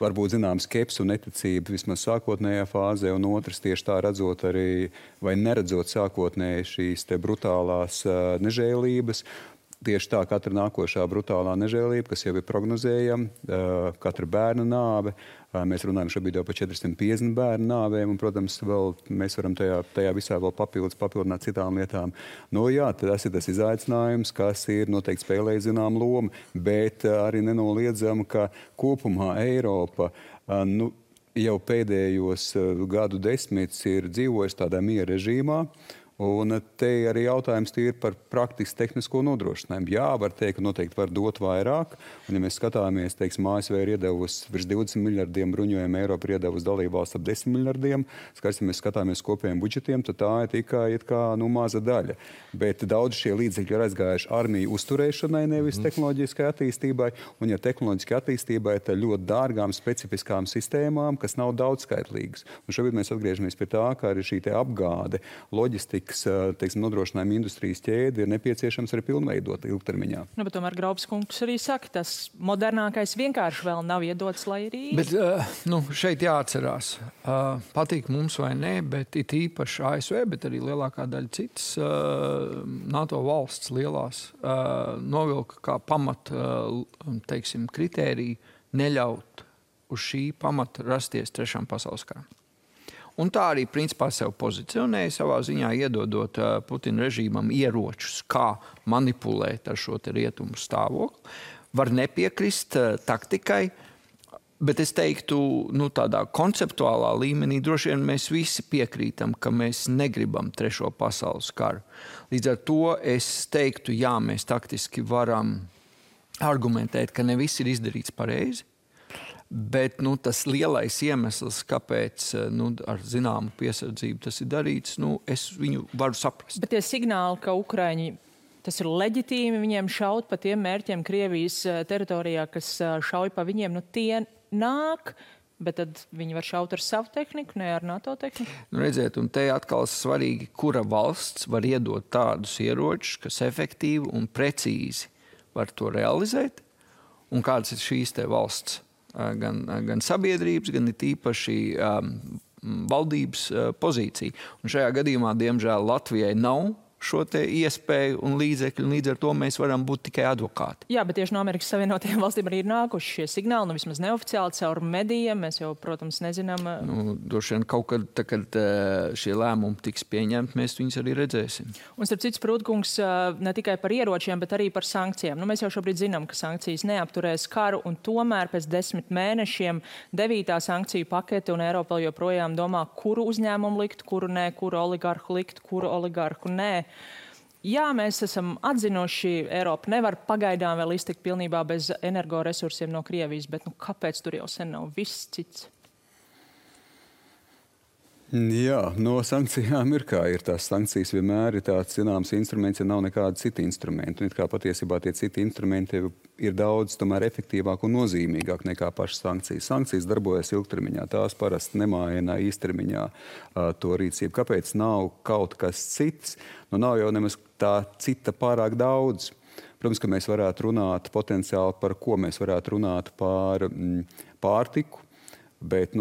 varbūt zinām skepsi un neticība vismaz sākotnējā fāzē, un otrs tieši tā redzot arī, vai neredzot sākotnēji šīs te brutālās nežēlības. Tieši tā katra nākošā brutālā nežēlība, kas jau ir prognozējama, katra bērna nāve. Mēs runājam šobrīd jau par 450 bērnu nāvēm, un, protams, vēl mēs varam tajā visā vēl papildināt citām lietām. Tas ir tas izaicinājums, kas ir noteikti spēlējis zinām lomu, bet arī nenoliedzam, ka kopumā Eiropa jau pēdējos gadu desmitus ir dzīvojis tādā miera režīmā. Un te arī jautājums ir par praktisku tehnisko nodrošinājumu. Jā, var teikt, ka noteikti var dot vairāk. Un, ja mēs skatāmies, teiksim, ASV ir iedevusi virs 20 miljardiem bruņojumu, Eiropa ir iedevusi dalībvalsts ap 10 miljardiem. Skaidrs, ja mēs skatāmies kopējiem budžetiem, tad tā ir tikai maza daļa. Bet daudz šie līdzekļi ir aizgājuši armiju uzturēšanai, nevis tehnoloģiskai attīstībai. Un, ja tehnoloģiskai attīstībai, tad ļoti dārgām, specifiskām sistēmām, kas nav daudzskaitlīgas. Un šobrīd mēs atgriežamies pie tā, ka arī šī te apgāde, loģistika, nodrošinājuma industrijas ķēdi ir nepieciešams arī pilnveidot ilgtermiņā. Bet tomēr Graubs kungs arī saka, tas modernākais vienkārši vēl nav iedots, lai arī... Bet šeit jāatcerās, patīk mums vai nē, bet it īpaši ASV, bet arī lielākā daļa citas NATO valsts lielās novilka kā pamat, teiksim, kritēriju neļaut uz šī pamata rasties trešām pasaules karam. Un tā arī principā sev pozicionēja savā ziņā, iedodot Putina režīmam ieročus, kā manipulēt ar šo te rietumu stāvokli. Var nepiekrist taktikai, bet es teiktu, tādā konceptuālā līmenī droši vien mēs visi piekrītam, ka mēs negribam trešo pasaules karu. Līdz ar to es teiktu, jā, mēs taktiski varam argumentēt, ka ne viss ir izdarīts pareizi. Bet tas lielais iemesls, kāpēc ar zināmu piesardzību tas ir darīts, es viņu varu saprast. Bet tie signāli, ka Ukraiņi, tas ir leģitīmi viņiem šaut pa tiem mērķiem Krievijas teritorijā, kas šauj pa viņiem, tie nāk, bet tad viņi var šaut ar savu tehniku, ne ar NATO tehniku? Redziet, un te atkal svarīgi, kura valsts var iedot tādus ieročus, kas efektīvi un precīzi var to realizēt, un kādas ir šīs te valsts. Gan sabiedrības, gan ir tīpaši valdības pozīcija. Un šajā gadījumā, diemžēl, Latvijai nav šo te iespēju un līdzekļu, un līdz ar to mēs varam būt tikai advokāti. Jā, bet tieši no Amerikas Savienotajām valstīm arī ir nākuši šie signāli, vismaz neoficiāli caur medijiem, mēs jau, protams, nezinām. Droši vien kaut kad, kad šie lēmumi tiks pieņemti, mēs viņus arī redzēsim. Un starp citu, Sprūtkungs, ne tikai par ieročiem, bet arī par sankcijām. Mēs jau šobrīd zinām, ka sankcijas neapturēs karu, un tomēr pēc 10 mēnešiem 9. sankciju pakete, un Eiropa joprojām domā, kuru uzņēmumu likt, kuru nē, kuru oligarhu likt, kuru oligarhu nē. Jā, mēs esam atzinuši, Eiropa nevar pagaidām vēl iztikt pilnībā bez energoresursiem no Krievijas, bet kāpēc tur jau sen nav viss cits? Jā, no sankcijām ir kā ir. Tās sankcijas vienmēr ir tāds zināms instruments, ja nav nekāda cita instrumenta. Un it kā patiesībā tie citi instrumenti ir daudz tomēr efektīvāk un nozīmīgāk nekā pašas sankcijas. Sankcijas darbojas ilgtermiņā, tās parasti nemaina īstermiņā to rīcību. Kāpēc nav kaut kas cits? Nav jau nemaz tā cita pārāk daudz. Protams, ka mēs varētu runāt potenciāli par ko mēs varētu runāt par pārtiku, bet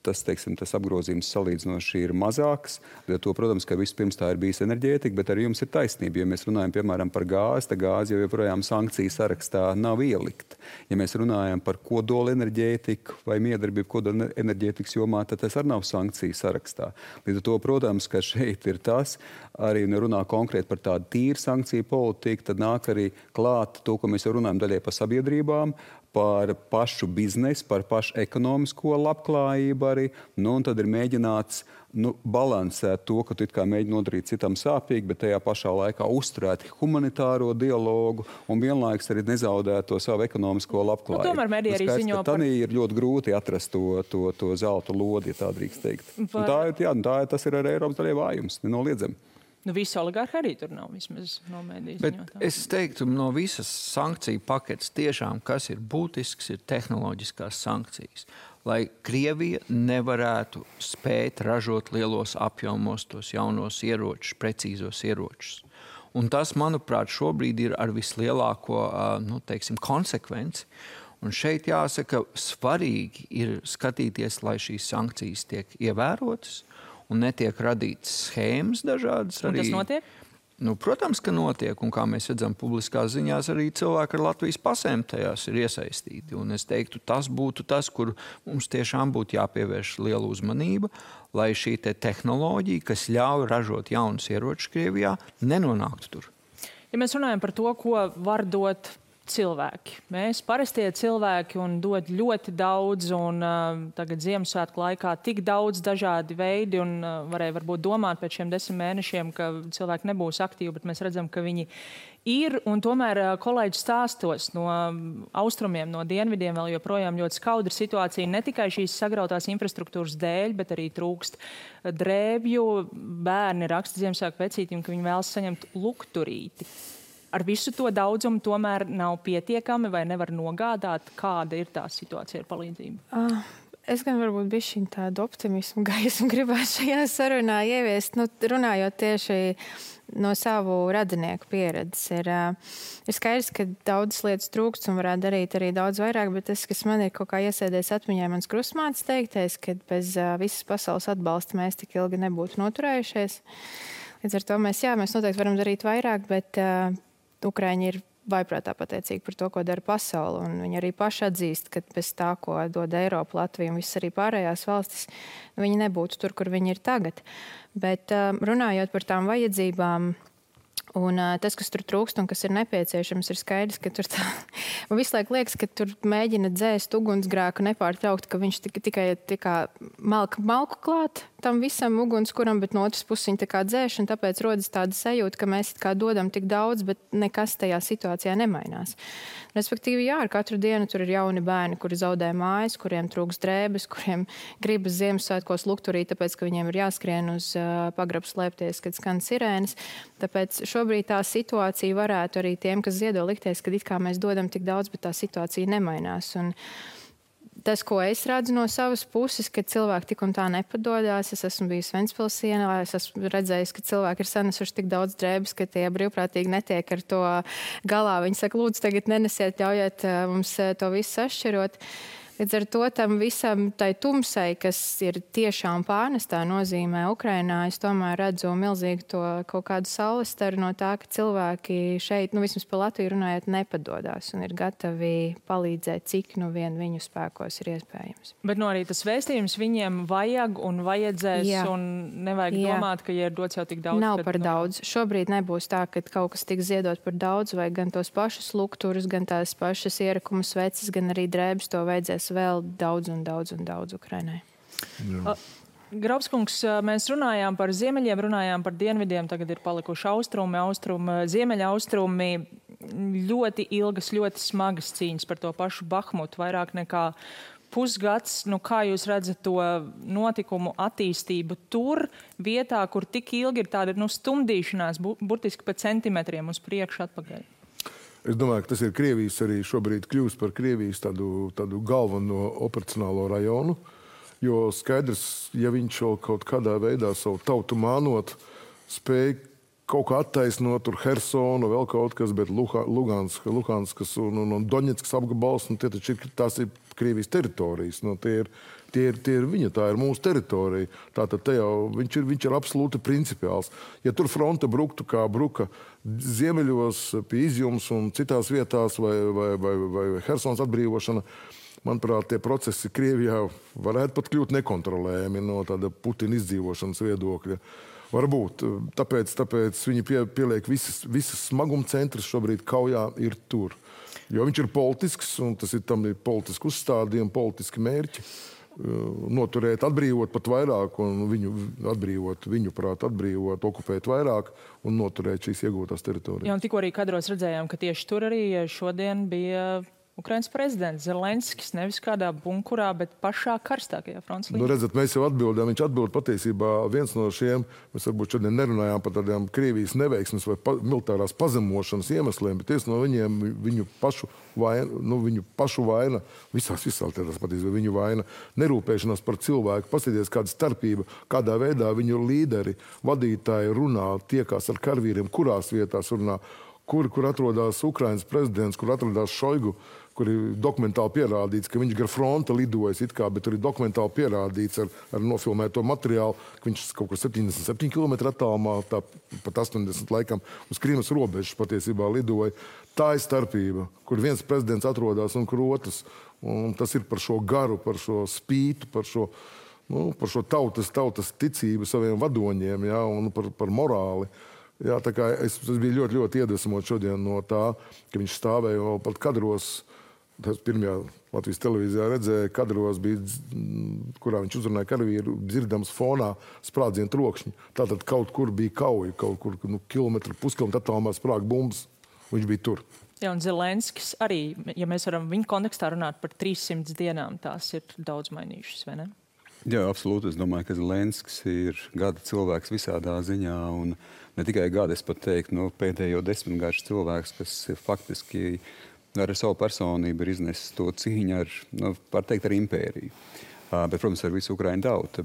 tas apgrozījums salīdzinoši ir mazāks. To, protams, ka vispirms tā ir bijis enerģētika, bet arī jums ir taisnība. Ja mēs runājam, piemēram, par gāzi, tad gāzi jau joprojām sankciju sarakstā nav ielikt. Ja mēs runājam par kodola enerģētiku vai miedarbību kodola enerģētikas jomā, tad tas arī nav sankciju sarakstā. Līdz ar to, protams, ka šeit ir tas, arī runā konkrēti par tādu tīru sankciju politiku, tad nāk arī klāt to, ko mēs jau runājam daļai par sabiedrībām, par pašu biznesu, par pašu ekonomisko labklājību arī. Un tad ir mēģināts balansēt to, ka tu it kā mēģini nodarīt citam sāpīgi, bet tajā pašā laikā uzturēt humanitāro dialogu un vienlaikus arī nezaudēt to savu ekonomisko labklājību. Tomēr mediji arī ziņo par... Tad ir ļoti grūti atrast to zelta lodi, ja tā drīkst teikt. Tas ir arī Eiropas daļai vājums, nenoliedzami. Visi oligarhi arī tur nav, vismaz no mediju ziņotā. Bet es teiktu, no visas sankciju paketes tiešām, kas ir būtisks, ir tehnoloģiskās sankcijas. Lai Krievija nevarētu spēt ražot lielos apjomos tos jaunos ieročus, precīzos ieročus. Un tas, manuprāt, šobrīd ir ar vislielāko, konsekvenci. Un šeit jāsaka, svarīgi ir skatīties, lai šīs sankcijas tiek ievērotas, un netiek radītas schēmas dažādas. Un tas notiek? Protams, ka notiek. Un kā mēs redzam publiskās ziņās, arī cilvēki ar Latvijas pasēm tajās ir iesaistīti. Un es teiktu, tas būtu tas, kur mums tiešām būtu jāpievērš liela uzmanība, lai šī tehnoloģija, kas ļauj ražot jaunus ieročus Krievijā, nenonāktu tur. Ja mēs runājam par to, ko var dot cilvēki. Mēs parastie cilvēki un dod ļoti daudz, un tagad Ziemassvētku laikā tik daudz dažādi veidi, un varēja varbūt domāt pēc šiem 10 mēnešiem, ka cilvēki nebūs aktīvi, bet mēs redzam, ka viņi ir, un tomēr kolēģi stāstos no austrumiem, no dienvidiem vēl joprojām ļoti skaudra situācija, ne tikai šīs sagrautās infrastruktūras dēļ, bet arī trūkst drēbju. Bērni raksta Ziemassvētku vecītim, ka viņi vēlas saņemt lukturīti. Ar visu to daudzumu tomēr nav pietiekami vai nevar nogādāt, kāda ir tā situācija ar palīdzību? Es gan varbūt bišķiņ tādu optimismu gaismu gribētu šajā sarunā ieviest, runājot tieši no savu radinieku pieredzes. Ir skaidrs, ka daudzas lietas trūkst un varētu darīt arī daudz vairāk, bet tas, kas man ir kaut kā iesēdējis atmiņā, mans krustmātes teiktais, ka bez visas pasaules atbalsta mēs tik ilgi nebūtu noturējušies. Līdz ar to mēs noteikti varam darīt vairāk, bet Ukraiņi ir vaiprātā pateicīgi par to, ko dara pasaule. Un viņi arī paši atzīst, ka bez tā, ko dod Eiropa, Latvija un visas arī pārējās valstis, viņi nebūtu tur, kur viņi ir tagad. Bet runājot par tām vajadzībām, un tas, kas tur trūkst un kas ir nepieciešams, ir skaidrs, ka tur tā... Man visu laiku liekas, ka tur mēģina dzēst ugunsgrēku nepārtraukt, ka viņš tikai malku klāt tam visam ugunskuram, bet no otras puses viņi tā kā dzēš, un tāpēc rodas tāda sajūta, ka mēs kā dodam tik daudz, bet nekas tajā situācijā nemainās. Respektīvi, jā, ar katru dienu tur ir jauni bērni, kuri zaudē mājas, kuriem trūks drēbes, kuriem gribas Ziemassvētkos lukturī, tāpēc, ka viņiem ir jāskrien uz pagrabu slēpties, kad skan sirēnas. Tāpēc šobrīd tā situācija varētu arī tiem, kas ziedo, likties, ka it kā mēs dodam tik daudz, bet tā situācija nemainās. Un tas, ko es redzu no savas puses, ka cilvēki tik un tā nepadodās. Es esmu bijis Ventspils ielā, es esmu redzējis, ka cilvēki ir sanesuši tik daudz drēbes, ka tie brīvprātīgi netiek ar to galā. Viņi saka, lūdzu, tagad nenesiet, ļaujiet mums to visu sašķirot. Līdz ar to tam visam tai tumsai, kas ir tiešām pārnestā nozīmē Ukrainā, es tomēr redzu milzīgi to kaut kādu saulestaru no tā, ka cilvēki šeit, vismaz par Latviju runājot, nepadodās un ir gatavi palīdzēt, cik vien viņu spēkos ir iespējams. Bet arī tas vēstījums viņiem vajag un vajadzēs, jā. Un nevajag domāt, ka, ja ir dots jau tik daudz. Nav par daudz. Šobrīd nebūs tā, ka kaut kas tiks ziedot par daudz, vai gan tos pašus lukturus, gan tās pašas ierakumu sveces, gan arī drēbes to vajadzēs vēl daudz Ukrainai. Graubskungs, mēs runājām par ziemeļiem, runājām par dienvidiem, tagad ir palikuši austrumi, ziemeļa austrumi, ļoti ilgas, ļoti smagas cīņas par to pašu Bahmutu, vairāk nekā pusgads. Kā jūs redzat to notikumu attīstību tur, vietā, kur tik ilgi ir tāda stumdīšanās, burtiski pa centimetriem uz priekšu atpakaļ? Es domāju, ka tas ir Krievijas arī šobrīd kļūst par Krievijas tādu galveno operacionālo rajonu, jo skaidrs, ja viņš kaut kādā veidā savu tautu mānot, spēj kaut kā attaisnot tur Hersonu, vēl kaut kas, bet Luhanskas un Doņetskas apgabals, tās ir Krievijas teritorijas. Tie ir viņa, tā ir mūsu teritorija. Tātad te jau viņš ir absolūti principiāls. Ja tur fronte bruktu, kā bruka ziemeļos, pie Izjums un citās vietās, vai Hersons atbrīvošana, manuprāt, tie procesi Krievijā varētu pat kļūt nekontrolējami no tāda Putina izdzīvošanas viedokļa. Varbūt. Tāpēc viņi pieliek visas smaguma centras šobrīd kaujā ir tur. Jo viņš ir politisks, un tam ir politiski uzstādījumi, politiski mērķi. Noturēt, atbrīvot pat vairāk, un viņuprāt atbrīvot, okupēt vairāk un noturēt šīs iegūtās teritorijas. Jā, un tikko arī kadros redzējām, ka tieši tur arī šodien bija Ukrainas prezidents Zelenskis, nevis kādā bunkurā, bet pašā karstākajā fronts līnijā. Redzat, mēs jau atbildējām, viņš atbild patiesībā viens no šiem, mēs varbūt šodien nerunājām par tādām Krievijas neveiksmes vai militārās pazemošanas iemesliem, bet no viņiem viņu pašu vaina, visās tādās patiesībā viņu vaina, nerūpēšanās par cilvēku, paskatīties kāda starpība, kādā veidā viņu līderi, vadītāji runā, tiekās ar karavīriem, kurās vietās runā, kur atrodas Ukrainas prezidents, kur atrodas Šoigu, kur ir dokumentāli pierādīts, ka viņš gar fronte lidojas bet tur ir dokumentāli pierādīts ar nofilmēto materiālu, ka viņš kaut kur 77 km attālumā, pat 80 laikam, uz Krimas robežas patiesībā lidoja. Tā ir starpība, kur viens prezidents atrodas un kur otrs. Un tas ir par šo garu, par šo spītu, par šo tautas ticību saviem vadoņiem, jā, un par morāli. Jā, tā kā es biju ļoti, ļoti iedvesmots šodien no tā, ka viņš stāvēja vēl pat kadros. Tas pirmajā Latvijas televīzijā redzēja, kadros bija, kurā viņš uzrunāja karavīru, dzirdams fonā sprādzienu trokšņi. Tātad kaut kur bija kauja, kaut kur puskilometru attālumā sprāga bumbas. Viņš bija tur. Jā, un Zelenskis arī, ja mēs varam viņa kontekstā runāt par 300 dienām, tās ir daudz mainījušas, vai ne? Jā, absolūti. Es domāju, ka Zelenskis ir gada cilvēks visādā ziņā, un ne tikai gada, es pat teiktu, pēdējo 10 gadus cilvēks, kas faktiski ar savu personību ir iznesis to cīņu ar, var teikt, ar impēriju. Bet, protams, ar visu Ukraiņu tautu.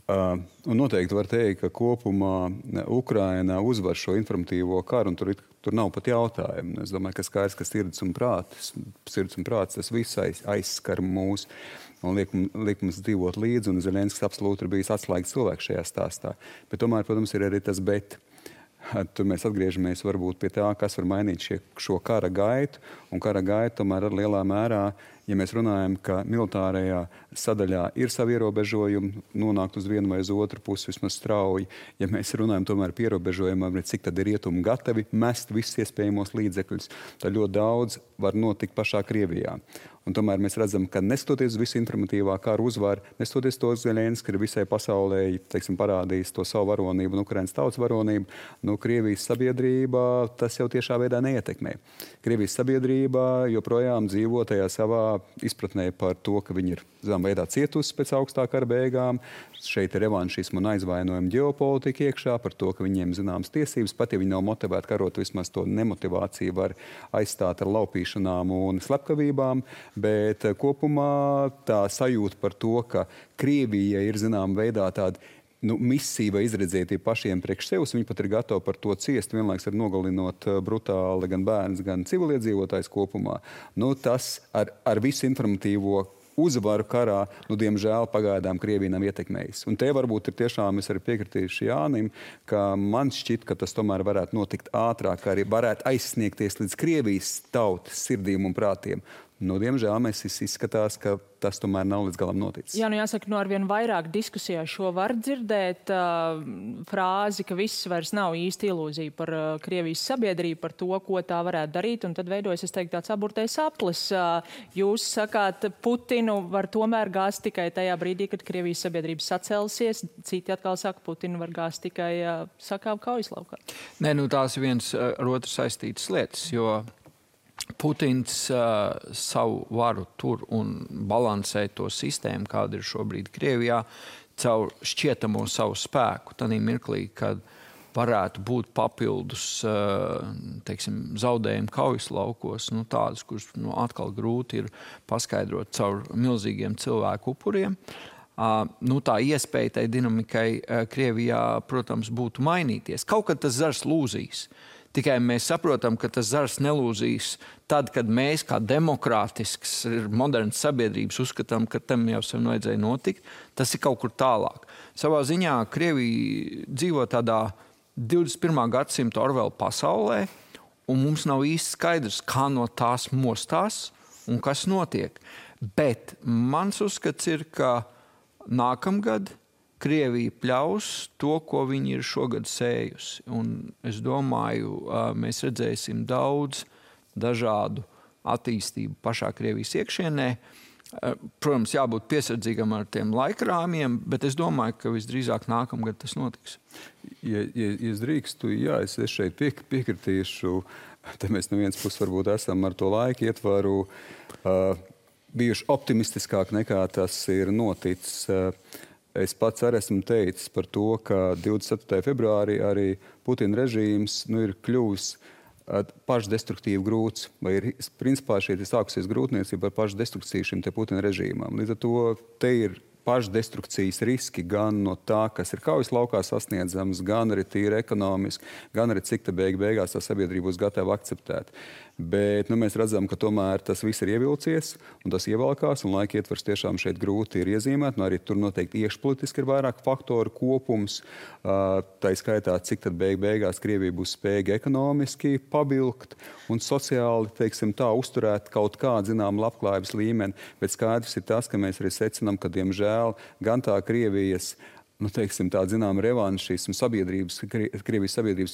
Un noteikti var teikt, ka kopumā Ukraina uzvar šo informatīvo karu, un tur nav pat jautājumu. Es domāju, ka skaidrs, ka sirds un prāts, tas viss aizskar mūs un liek mums dzīvot līdzi, un Zelenskis absolūti ir bijis atslēgas cilvēks šajā stāstā. Bet tomēr, protams, ir arī tas bet. Tur mēs atgriežamies varbūt pie tā, kas var mainīt šo kara gaitu. Un kara gaita tomēr ar lielā mērā, ja mēs runājam, ka militārajā sadaļā ir savi ierobežojumi, nonākt uz vienu vai uz otru pusi vismaz strauji. Ja mēs runājam tomēr par ierobežojumiem, cik tad ir rietumi gatavi mest visus iespējamos līdzekļus, tad ļoti daudz var notikt pašā Krievijā. Un tomēr mēs redzam, ka neskatoties uz visu informatīvā kara uzvaru, neskatoties to Zeļenskis, ka visai pasaulē, teiksim, parādījis to savu varonību un Ukrainas tautas varonību, Krievijas sabiedrība tas jau tiešā veidā neietekmē. Krievijas sabiedrība joprojām dzīvo tajā savā izpratnē par to, ka viņi ir zināmā veidā cietusi pēc augstā kara beigām. Šeit ir revanšismu un aizvainojuma ģeopolitika iekšā par to, ka viņiem zināmas tiesības, pat ja viņi nav motivēti karot, vismaz to nemotivāciju var aizstāt ar laupīšanām un slepkavībām. Bet kopumā tā sajūta par to, ka Krievija ir zināmā veidā tāda misija vai izredzētība pašiem priekš sevis, viņi pat ir gatavi par to ciest, vienlaiks ar nogalinot brutāli gan bērns, gan civiliedzīvotājs kopumā. Tas ar visu informatīvo uzvaru karā, diemžēl pagaidām Krievija nav ietekmējis. Un te varbūt ir tiešām, es arī piekritīšu Jānim, ka man šķiet, ka tas tomēr varētu notikt ātrāk, arī varētu aizsniegties līdz Krievijas tautas sirdīm un prātiem. Diemžēl mēs izskatās, ka tas tomēr nav līdz galam noticis. Jā, jāsaka, arvien vairāk diskusijā šo var dzirdēt frāzi, ka viss vairs nav īsti ilūzija par Krievijas sabiedrību, par to, ko tā varētu darīt, un tad veidojas, es teiktu, tāds aburtais aplis. Jūs sakāt, Putinu var tomēr gāzt tikai tajā brīdī, kad Krievijas sabiedrība sacelsies, citi atkal saka, Putinu var gāzt tikai sakāvu kaujas laukā. Nē, tās ir viens ar otru saistītas lietas, jo Putins savu varu tur un balansē to sistēmu, kāda ir šobrīd Krievijā, caur šķietamo savu spēku. Tanī mirklī, kad varētu būt papildus zaudējumi kaujas laukos, tādus, kurus atkal grūti ir paskaidrot caur milzīgiem cilvēku upuriem. Tā iespēja tai dinamikai Krievijā, protams, būtu mainīties. Kaut kad tas zars lūzīs. Tikai mēs saprotam, ka tas zars nelūzīs tad, kad mēs, kā demokrātisks, modernas sabiedrības, uzskatām, ka tam jau sen vajadzēja notikt. Tas ir kaut kur tālāk. Savā ziņā Krievija dzīvo tādā 21. gadsimta Orwella pasaulē, un mums nav īsti skaidrs, kā no tās mostās un kas notiek. Bet mans uzskats ir, ka nākamgad Krievija pļaus to, ko viņi ir šogad sējusi. Un es domāju, mēs redzēsim daudz dažādu attīstību pašā Krievijas iekšienē. Protams, jābūt piesardzīgam ar tiem laikrāmiem, bet es domāju, ka visdrīzāk nākamgad tas notiks. Ja es drīkstu, es šeit piekritīšu. Te mēs no vienas puses varbūt esam ar to laiku ietvaru bijuši optimistiskāk nekā tas ir noticis. Es pats arī esmu teicis par to, ka 27. februārī arī Putina režīms ir kļuvis pašdestruktīvi grūts, vai ir principā šeit sākusies grūtniecība ar pašdestrukciju šim te Putina režīmam. Līdz ar to te ir pašdestrukcijas riski gan no tā, kas ir kaujas laukā sasniedzams, gan arī tīri ekonomiski, gan arī cik te beigās tā sabiedrība būs gatava akceptēt. Bet mēs redzam, ka tomēr tas viss ir ievilcies un tas ievalkās, un laika ietvers tiešām šeit grūti ir iezīmēt. Arī tur noteikti iekšpolitiski ir vairāk faktoru kopums. Tā skaitā, cik tad beigās Krievija būs spējīga ekonomiski pabilkt un sociāli, tā, uzturēt kaut kādu zināmu labklājības līmeni. Bet skaidrs ir tas, ka mēs arī secinām, ka, diemžēl, gan tā Krievijas tāda zināma revanšismu sabiedrības, Krievijas sabiedrības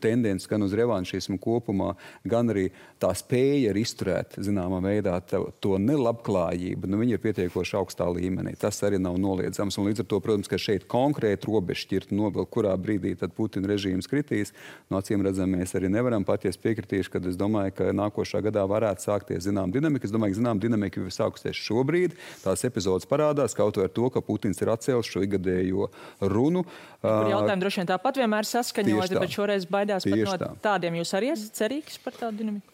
tendences gan uz revanšismu kopumā, gan arī tā spēja ir izturēt zināmā veidā to nelabklājību. Viņi ir pietiekoši augstā līmenī. Tas arī nav noliedzams. Un līdz ar to, protams, ka šeit konkrēti robežšķirti novilkt, kurā brīdī tad Putina režīms kritīs. Acīm redzam, mēs arī nevaram paties piekritīšu, kad es domāju, ka nākošā gadā varētu sākties zinām dinamika. Es domāju, ka zinām dinamika jau ir sākusies šobrīd. Tās epizodes parādās kaut vai ar to, ka Putins ir atcēlis šo ikgadējo runu. Kur jautājumi droši vien tāpat vienmēr saskaņoti, bet šoreiz baidās pat no tādiem. Jūs arī esat cerīgs par tādu dinamiku?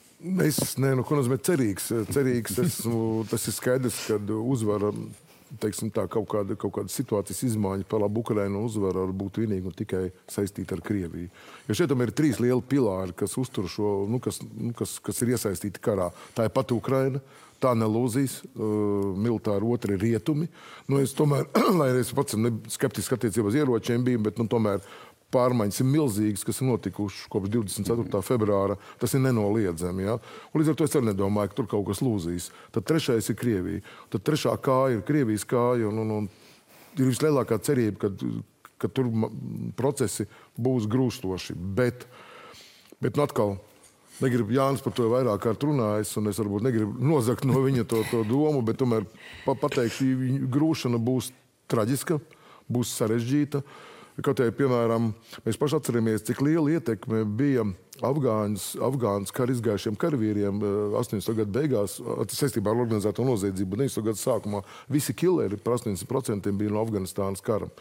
Ko nozīmē cerīgs? Tas ir skaidrs, kad uzvara, kaut kāda situācijas izmaiņa par labu Ukrainu uzvara var būt vienīgi un tikai saistīta ar Krieviju. Jo šeit ir 3 lieli pilāri, kas uztur šo, kas ir iesaistīti karā. Tā ir pat Ukraina. Tā nelūzīs, militāri otri rietumi. Es tomēr, lai es pats skeptiski attiecībā uz ieročiem biju, bet tomēr pārmaiņas ir milzīgas, kas ir notikušas kopš 24. februāra. Tas ir nenoliedzami. Ja? Un līdz ar to es arī nedomāju, ka tur kaut kas lūzīs. Tad trešais ir Krievija. Tad trešā kāja ir Krievijas kāja. Un ir vislielākā cerība, ka tur procesi būs grūstoši. Bet atkal, negribu Jānis par to vairāk kārt runājis, un es varbūt negribu nozagt no viņa to domu, bet tomēr pateikšu, grūšana būs traģiska, būs sarežģīta. Kaut arī, piemēram, mēs paši atceramies, cik liela ietekme bija Afgānas kara izgājušiem karavīriem 80. gadu beigās, saistībā ar organizēto noziedzību 90. gadu sākumā. Visi killeri par 80% bija no Afganistānas kara.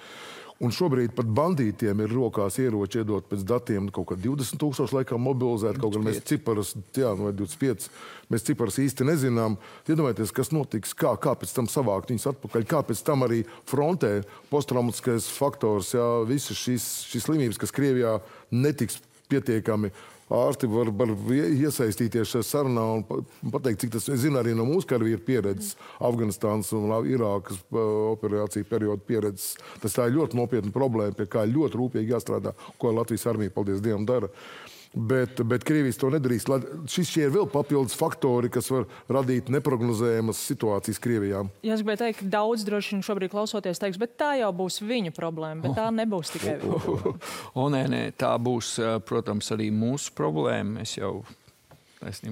Un šobrīd pat bandītiem ir rokās ieroči iedot pēc datiem kaut kā 20,000 laikam mobilizēt, kaut gan mēs ciparas, vai 25, mēs ciparas īsti nezinām. Iedomājieties, kas notiks, kā pēc tam savākt viņus atpakaļ, kā pēc tam arī frontē posttraumatiskais faktors, visas šīs slimības, kas Krievijā netiks pietiekami. Ārsti var iesaistīties šajā sarunā un pateikt, cik tas, es zinu, arī no mūsu karavīru pieredzes, Afganistānas un Irākas operāciju periodu pieredzes. Tā ir ļoti nopietna problēma, pie kā ļoti rūpīgi jāstrādā, ko Latvijas armija, paldies Dievam, dara. Bet Krievijas to nedarīs. Šie ir vēl papildus faktori, kas var radīt neprognozējamas situācijas Krievijā. Ja es gribēju teikt, daudz droši vien šobrīd klausoties teiks, bet tā jau būs viņu problēma, bet tā nebūs tikai viņa problēma. Nē, tā būs, protams, arī mūsu problēma. Es jau,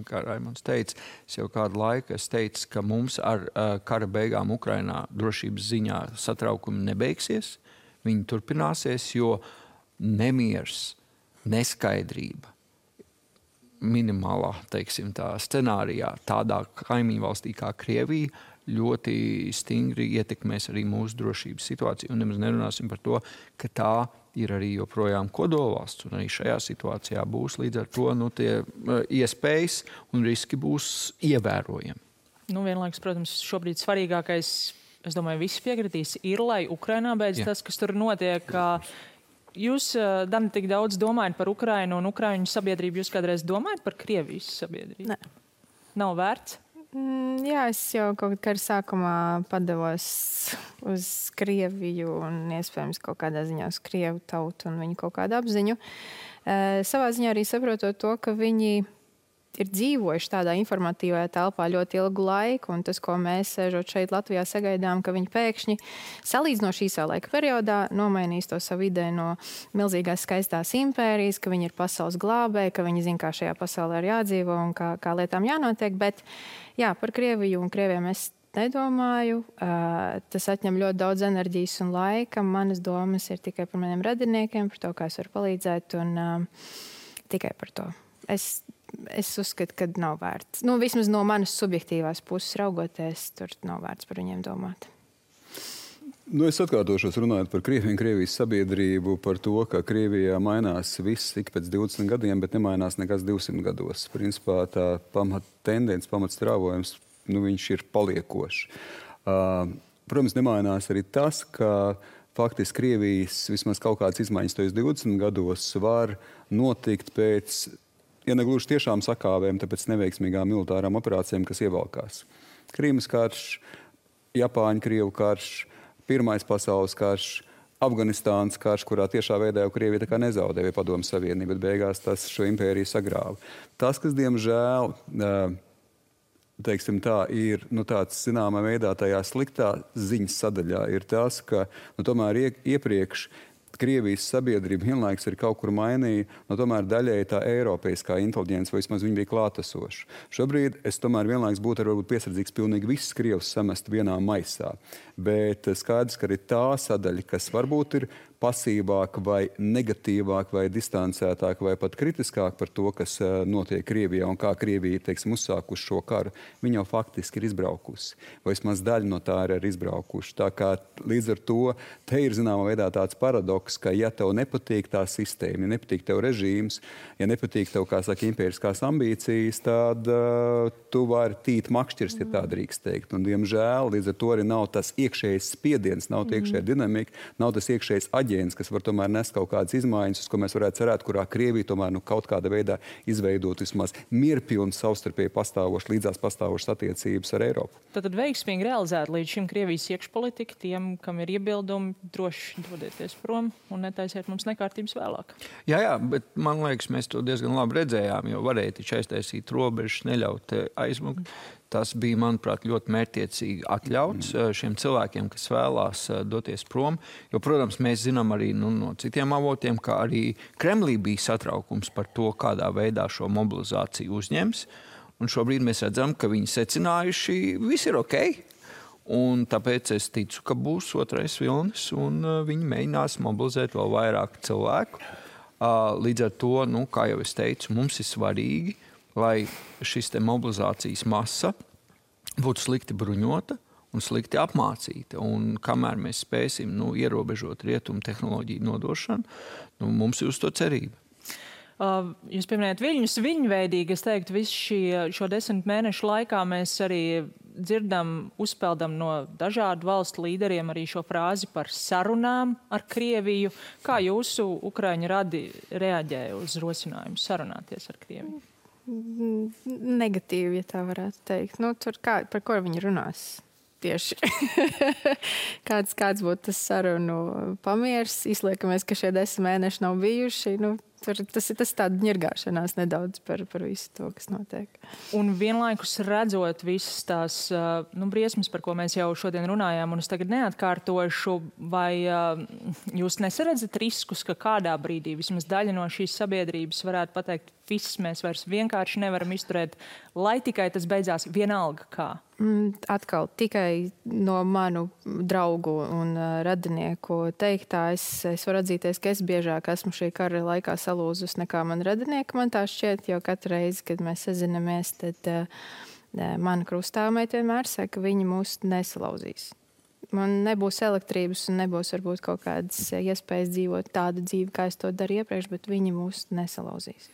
kā Raimonds teica, es jau kādu laiku teicu, ka mums ar kara beigām Ukrainā drošības ziņā satraukumi nebeigsies. Viņi turpināsies, jo nemiers, neskaidrība minimālā, teiksim, tā scenārijā tādā kaimiņu valstī kā Krievija ļoti stingri ietekmēs arī mūsu drošības situāciju. Un nemaz nerunāsim par to, ka tā ir arī joprojām kodolvalsts. Un arī šajā situācijā būs līdz ar to tie iespējas un riski būs ievērojami. Vienlaikus, protams, šobrīd svarīgākais, es domāju, visi piekritīs, ir, lai Ukrainā beidz tas, kas tur notiek. Jūs, Dani, tik daudz domājat par Ukrainu un Ukraiņu sabiedrību. Jūs kādreiz domājat par Krievijas sabiedrību? Nē. Nav vērts? Jā, es jau kaut kādā sākumā padevos uz Krieviju un iespējams kaut kādā ziņā uz Krievu tautu un viņu kaut kādu apziņu. Savā ziņā arī saprotot to, ka viņi ir dzīvojuši tādā informatīvajā telpā ļoti ilgu laiku, un tas, ko mēs sēžot šeit Latvijā sagaidām, ka viņi pēkšņi salīdzinoši īsā laika periodā nomainīs to savu ideju no milzīgās skaistās impērijas, ka viņi ir pasaules glābēji, ka viņi zina, kā šajā pasaulē ir jādzīvo un kā lietām jānotiek. Bet jā, par Krieviju un Krieviem es nedomāju. Tas atņem ļoti daudz enerģijas un laika. Manas domas ir tikai par maniem radiniekiem, par to, kā es varu palīdzēt, un tikai par to. Es uzskatu, ka nav vērts. Vismaz no manas subjektīvās puses raugoties, tur nav vērts par viņiem domāt. Es atkārtošos runājot par Krieviju un Krievijas sabiedrību, par to, ka Krievijā mainās viss ik pēc 20 gadiem, bet nemainās nekas 200 gados. Principā tā tendence, pamatstrāvojums, viņš ir paliekošs. Protams, nemainās arī tas, ka faktiski Krievijas vismaz kaut kādas izmaiņas tojos 20 gados var notikt pēc, ja negluži tiešām sakāvēm, tāpēc neveiksmīgām militārām operācijām, kas ievalkās. Krīmas karš, Japāņu-Krievu karš, Pirmais pasaules karš, Afganistānas karš, kurā tiešā veidā jau Krievija tā kā nezaudēja Padomju Savienību, bet beigās tas šo impēriju sagrāva. Tas, kas, diemžēl, teiksim tā, ir tāds zināmā veidā tajā sliktā ziņas sadaļā, ir tas, ka tomēr iepriekš Krievijas sabiedrība vienlaikus ir kaut kur mainīja, tomēr daļēji tā eiropeiskā inteliģence, vai vismaz viņa bija klātesoša. Šobrīd es tomēr vienlaikus būtu varbūt piesardzīgs pilnīgi visus Krievus samest vienā maisā. Bet skaidrs, ka arī tā sadaļa, kas varbūt ir pasīvāk vai negatīvāk vai distancētāk vai pat kritiskāk par to, kas notiek Krievijā un kā Krievija, teiksim, uzsākuši šo karu, viņa jau faktiski ir izbraukusi. Vai vismaz daļa no tā ir izbraukuši. Tā kā līdz ar to te ir zināmā veidā tāds paradoks, ka ja tev nepatīk tā sistēma, ja nepatīk tev režīms, ja nepatīk tev, kā saka, impēriskās ambīcijas, tad tu vari tīt makšķirs, ja tā drīkst teikt. Un, diemžēl, līdz ar to arī nav tas iekšējais spiediens, nav tā iekšējā dinamika, nav tas iekšējais aģents, kas var tomēr nest kaut kādas izmaiņas, uz ko mēs varētu cerēt, kurā Krievija tomēr kaut kādā veidā izveidot vismaz mierpilnu savstarpēji pastāvošu, līdzās pastāvošas attiecības ar Eiropu. Tad veiksmīgi realizēt līdz šim Krievijas iekšpolitika, tiem, kam ir iebildumi, droši dodieties prom. un netaisiet mums nekārtības vēlāk. Jā, bet man liekas, mēs to diezgan labi redzējām, jo varēja taču aiztaisīt robežas, neļaut aizmukt. Tas bija, manuprāt, ļoti mērķtiecīgi atļauts šiem cilvēkiem, kas vēlās doties prom. Jo, protams, mēs zinām arī no citiem avotiem, ka arī Kremlī bija satraukums par to, kādā veidā šo mobilizāciju uzņems. Un šobrīd mēs redzam, ka viņi secinājuši, viss ir ok. Un tāpēc es ticu, ka būs otrais vilnis, un viņi mēģinās mobilizēt vēl vairāk cilvēku. Līdz ar to, kā jau es teicu, mums ir svarīgi, lai šis te mobilizācijas masa būtu slikti bruņota un slikti apmācīta. Un kamēr mēs spēsim ierobežot rietumu tehnoloģiju nodošanu, mums ir uz to cerība. Jūs pieminējat viļņus, viļņveidīgi, es teiktu, visu šo 10 mēnešu laikā mēs arī dzirdam, uzpeldam no dažādu valstu līderiem arī šo frāzi par sarunām ar Krieviju. Kā jūsu Ukraiņu radi reaģēja uz rosinājumu sarunāties ar Krieviju? Negatīvi, ja tā varētu teikt. Par ko viņi runās? Tieši. kāds būtu tas sarunu pamiers? Izliekamies, ka šie 10 mēneši nav bijuši. Tas tāda ņirgāšanās nedaudz par visu to, kas notiek. Un vienlaikus redzot visas tās briesmas, par ko mēs jau šodien runājām, un es tagad neatkārtošu, vai jūs nesaredzat riskus, ka kādā brīdī vismaz daļa no šīs sabiedrības varētu pateikt, viss mēs vairs vienkārši nevaram izturēt, lai tikai tas beidzās vienalga kā? Atkal tikai no manu draugu un radinieku teiktā es varu atzīties, ka es biežāk esmu šī kara laikā salūzus nekā man radinieki. Man tā šķiet, jo katru reizi, kad mēs sazinamies, tad mana krustāvmeita vienmēr saka, ka viņi mūs nesalauzīs. Man nebūs elektrības un nebūs varbūt kaut kādas iespējas dzīvot tādu dzīvi, kā es to daru iepriekš, bet viņi mūs nesalauzīs.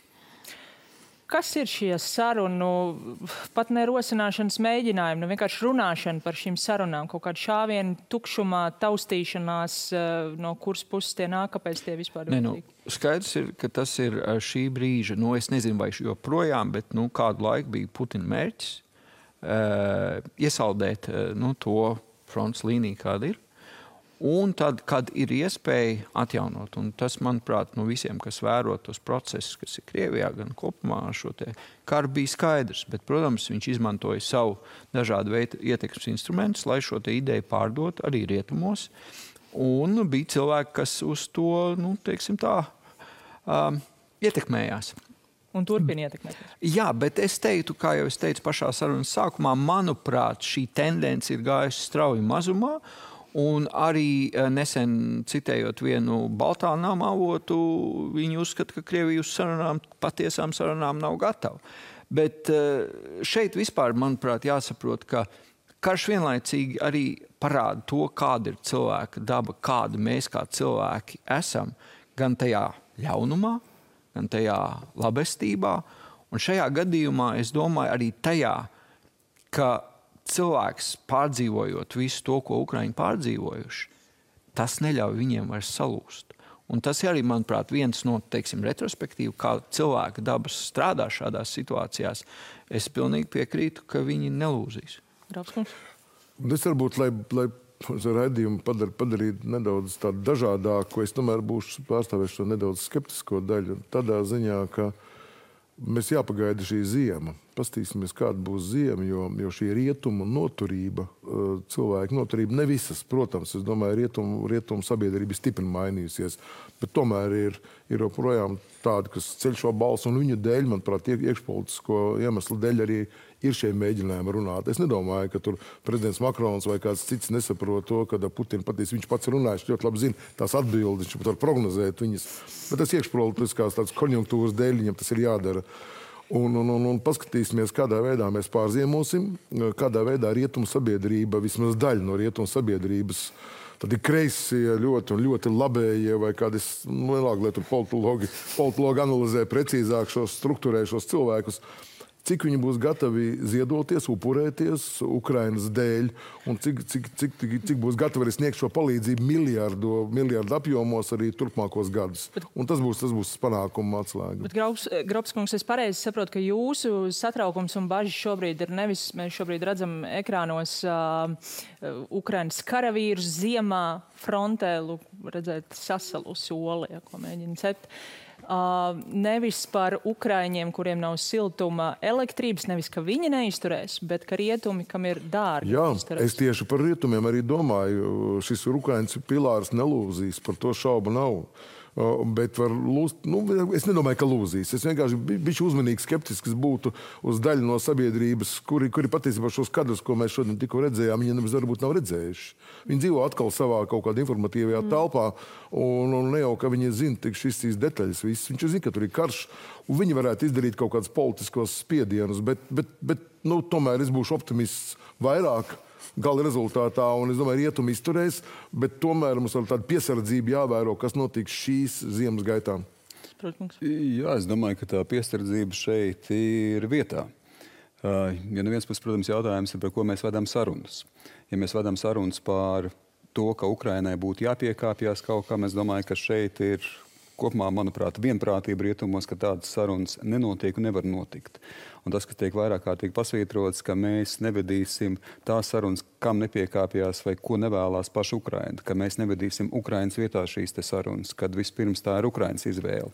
Kas ir šie sarunu, pat ne rosināšanas mēģinājumi, vienkārši runāšana par šīm sarunām, kaut kāda šāviena, tukšumā, taustīšanās, no kuras puses tie nāk, kāpēc tie vispār vajadzīgi? Skaidrs ir, ka tas ir šī brīža, es nezinu, vai joprojām, bet kādu laiku bija Putina mērķis iesaldēt to frontes līniju, kāda ir. Un tad, kad ir iespēja atjaunot, un tas, manuprāt, visiem, kas vēro tos procesus, kas ir Krievijā, gan kopumā šo te karu, bija skaidrs. Bet, protams, viņš izmantoja savu dažādu veidu ietekmes instrumentus, lai šo te ideju pārdot arī rietumos. Un bija cilvēki, kas uz to, teiksim tā, ietekmējās. Un turpina ietekmēties. Jā, bet es teiktu, kā jau es teicu pašā sarunas sākumā, manuprāt, šī tendence ir gājusi strauji mazumā. Un arī nesen citējot vienu Baltānām avotu, viņi uzskata, ka Krievija uz patiesām sarunām nav gatava. Bet šeit vispār, manuprāt, jāsaprot, ka karš vienlaicīgi arī parāda to, kāda ir cilvēka daba, kāda mēs kā cilvēki esam, gan tajā ļaunumā, gan tajā labestībā. Un šajā gadījumā es domāju arī tajā, ka cilvēks pārdzīvojot visu to, ko Ukraiņi pārdzīvojuši, tas neļauj viņiem vairs salūst. Un tas ir arī, manuprāt, viens no, retrospektīvu, kā cilvēka dabas strādā šādās situācijās. Es pilnīgi piekrītu, ka viņi nelūzīs. Grafskums? Es varbūt, lai raidījumu padarītu nedaudz tādu dažādāku, es tomēr būšu pārstāvēšu to nedaudz skeptisko daļu. Tādā ziņā, ka mēs jāpagaida šī ziema. Pastīsimies, kāda būs ziema, jo šī rietumu noturība, cilvēku noturība ne visas. Protams, es domāju, rietumu sabiedrība stipri mainījusies, bet tomēr ir joprojām tādi, kas ceļ šo balsu, un viņu dēļ, manuprāt, iekšpolitisko iemeslu dēļ arī ir šie mēģinājumi runāt. Es nedomāju, ka tur prezidents Makrons vai kāds cits nesaprot to, kad Putina patīs, viņš pats runājuši, ļoti labi zina tās atbildes, viņš pat var prognozēt viņas. Bet tas iekšpolitiskās tādas konjunktūras dēļ viņam tas ir jādara. Un paskatīsimies, kādā veidā mēs pārziemosim, kādā veidā rietumu sabiedrība, vismaz daļa no rietumu sabiedrības, tad ir kreisie ļoti un ļoti labējie, vai kādi lielāki, lai tur politologi analizē precīzāk struktūrē šos cilvēkus. cik viņi būs gatavi ziedoties, upurēties Ukrainas dēļ, un cik būs gatavi arī sniegt šo palīdzību miljardu apjomos arī turpmākos gadus. Un tas būs panākuma atslēga. Bet, Grobskungs, es pareizi saprotu, ka jūsu satraukums un bažas šobrīd ir nevis, mēs šobrīd redzam ekrānos Ukrainas karavīrus ziemā frontē, redzēt sasalusi oli, ko mēģina cept. Nevis par ukraiņiem, kuriem nav siltuma elektrības, nevis, ka viņi neizturēs, bet ka rietumi, kam ir dārgi. Jā, izturēs. es tieši par rietumiem arī domāju. Šis Ukrainas pilārs nelūzīs, par to šaubu nav. Bet var lūst, es nedomāju, ka lūzīs. Es vienkārši bišķi uzmanīgi skeptisks būtu uz daļu no sabiedrības, kuri patiesībā šos kadrus, ko mēs šodien tikko redzējām, viņi varbūt nav redzējuši. Viņi dzīvo atkal savā kaut kādā informatīvajā telpā, un ne jau, ka viņi zina tik šīs detaļas viss. Viņš zina, ka tur ir karš, un viņi varētu izdarīt kaut kādus politiskos spiedienus, bet tomēr es būšu optimists vairāk gala rezultātā, un es domāju, rietumi izturēs, bet tomēr mums ar tādu piesardzību jāvēro, kas notiks šīs ziemas gaitā. Jā, es domāju, ka tā piesardzība šeit ir vietā. Ja no viens puses, protams, jautājums ir, par ko mēs vedam sarunas. Ja mēs vedam sarunas par to, ka Ukrainai būtu jāpiekāpjas kaut kam, es domāju, ka šeit ir kopumā, manuprāt, vienprātība rietumos, ka tādas sarunas nenotiek un nevar notikt. Un tas, kas tiek vairāk kārtīgi pasvītrots, ka mēs nevedīsim tās sarunas, kam nepiekāpjās vai ko nevēlās paša Ukraina, ka mēs nevedīsim Ukrainas vietā šīs te sarunas, kad vispirms tā ir Ukrainas izvēle.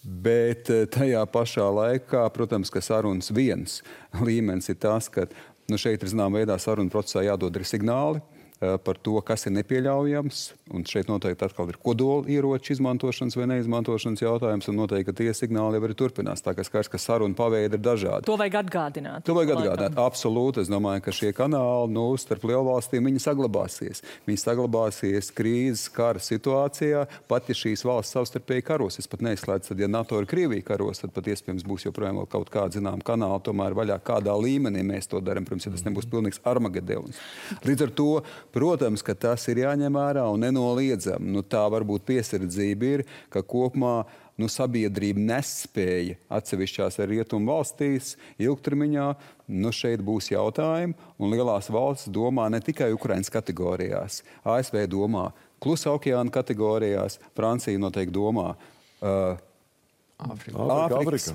Bet tajā pašā laikā, protams, ka sarunas viens līmenis ir tas, ka šeit ir zinām veidā sarunu procesā jādod arī signāli par to, kas ir nepieļaujams. Un šeit noteikti atkal ir kodola ieroču izmantošanas vai neizmantošanas jautājums, un noteikti, ka tie signāli jau arī turpinās. Tā kā skaidrs, ka saruna paveidi ir dažādi. To vajag atgādināt. To vajag atgādināt. Absolūti. Es domāju, ka šie kanāli starp lielvalstīm viņi saglabāsies. Viņi saglabāsies krīzes kara situācijā, pat ja šīs valsts savstarpēji karos. Es pat neizslēdzu, tad ja NATO ir Krievija karos, tad pat iespējams būs joprojām vēl kaut kāda zinām kanāla, tomēr vaļā kādā līmenī mēs to darām. Protams, ja tas nebūs pilnīgs Armagedons. Līdz ar to, protams, ka tas ir jāņem vērā un nenoliedzam. Tā varbūt piesardzība ir, ka kopumā sabiedrība nespēja atsevišķās rietumu valstīs ilgtermiņā. Šeit būs jautājumi, un lielās valsts domā ne tikai Ukrainas kategorijās. ASV domā Klusā okeāna kategorijās, Francija noteikti domā Āfrikas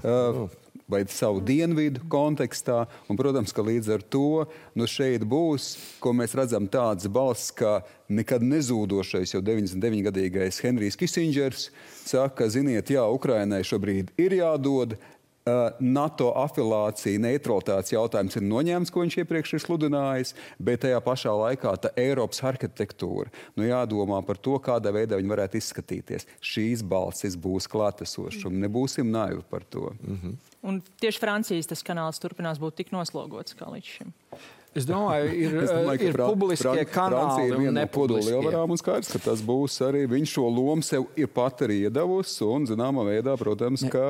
vai savu dienvidu kontekstā. Un, protams, ka līdz ar to šeit būs, ko mēs redzam, tāds balss, kā nekad nezūdošais jau 99-gadīgais Henrijs Kisindžers saka, ziniet, jā, Ukrainai šobrīd ir jādod NATO afilācija, neutralitātes jautājums ir noņēmts, ko viņš iepriekš ir sludinājis, bet tajā pašā laikā tā Eiropas arhitektūra, jādomā par to, kādā veidā viņi varētu izskatīties. Šīs balsis būs klātesošas, un nebūsim naivi par to. Un tieši Francijas tas kanāls turpinās būt tik noslogots kā līdz šim. Es domāju, ir publiskie kanāli un nepubliskie. Lielvarām un skaidrs, ka tas būs arī viņš šo lomu sev ir pat arī iedavusi un, zināmā veidā, protams, ka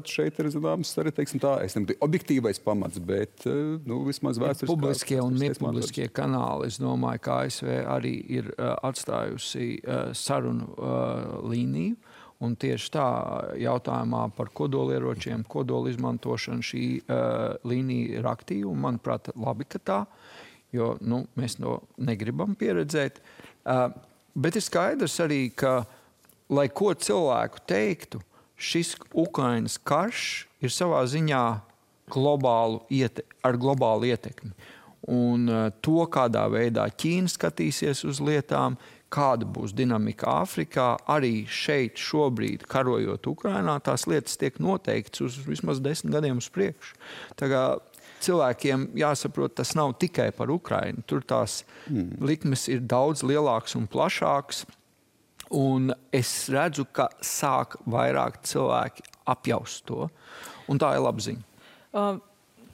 šeit ir, zināms, arī, teiksim tā, es nebūtu objektīvais pamats, bet, vismaz vēsturiskās. Publiskie un nepubliskie kanāli, es domāju, ka ASV arī ir atstājusi sarunu līniju. Un tieši tā jautājumā par kodolieročiem, kodola izmantošanu šī līnija ir aktīva. Un, manuprāt, labi, ka tā, jo mēs to negribam pieredzēt. Bet ir skaidrs arī, ka, lai ko cilvēku teiktu, šis Ukrainas karš ir savā ziņā ar globālu ietekmi. Un to, kādā veidā Ķīna skatīsies uz lietām, kāda būs dinamika Āfrikā, arī šeit šobrīd, karojot Ukrainā, tās lietas tiek noteikts uz vismaz 10 gadiem uz priekšu. Tā kā cilvēkiem jāsaprot, tas nav tikai par Ukrainu. Tur tās likmes ir daudz lielākas un plašākas, un es redzu, ka sāk vairāk cilvēki apjaust to, un tā ir laba ziņa.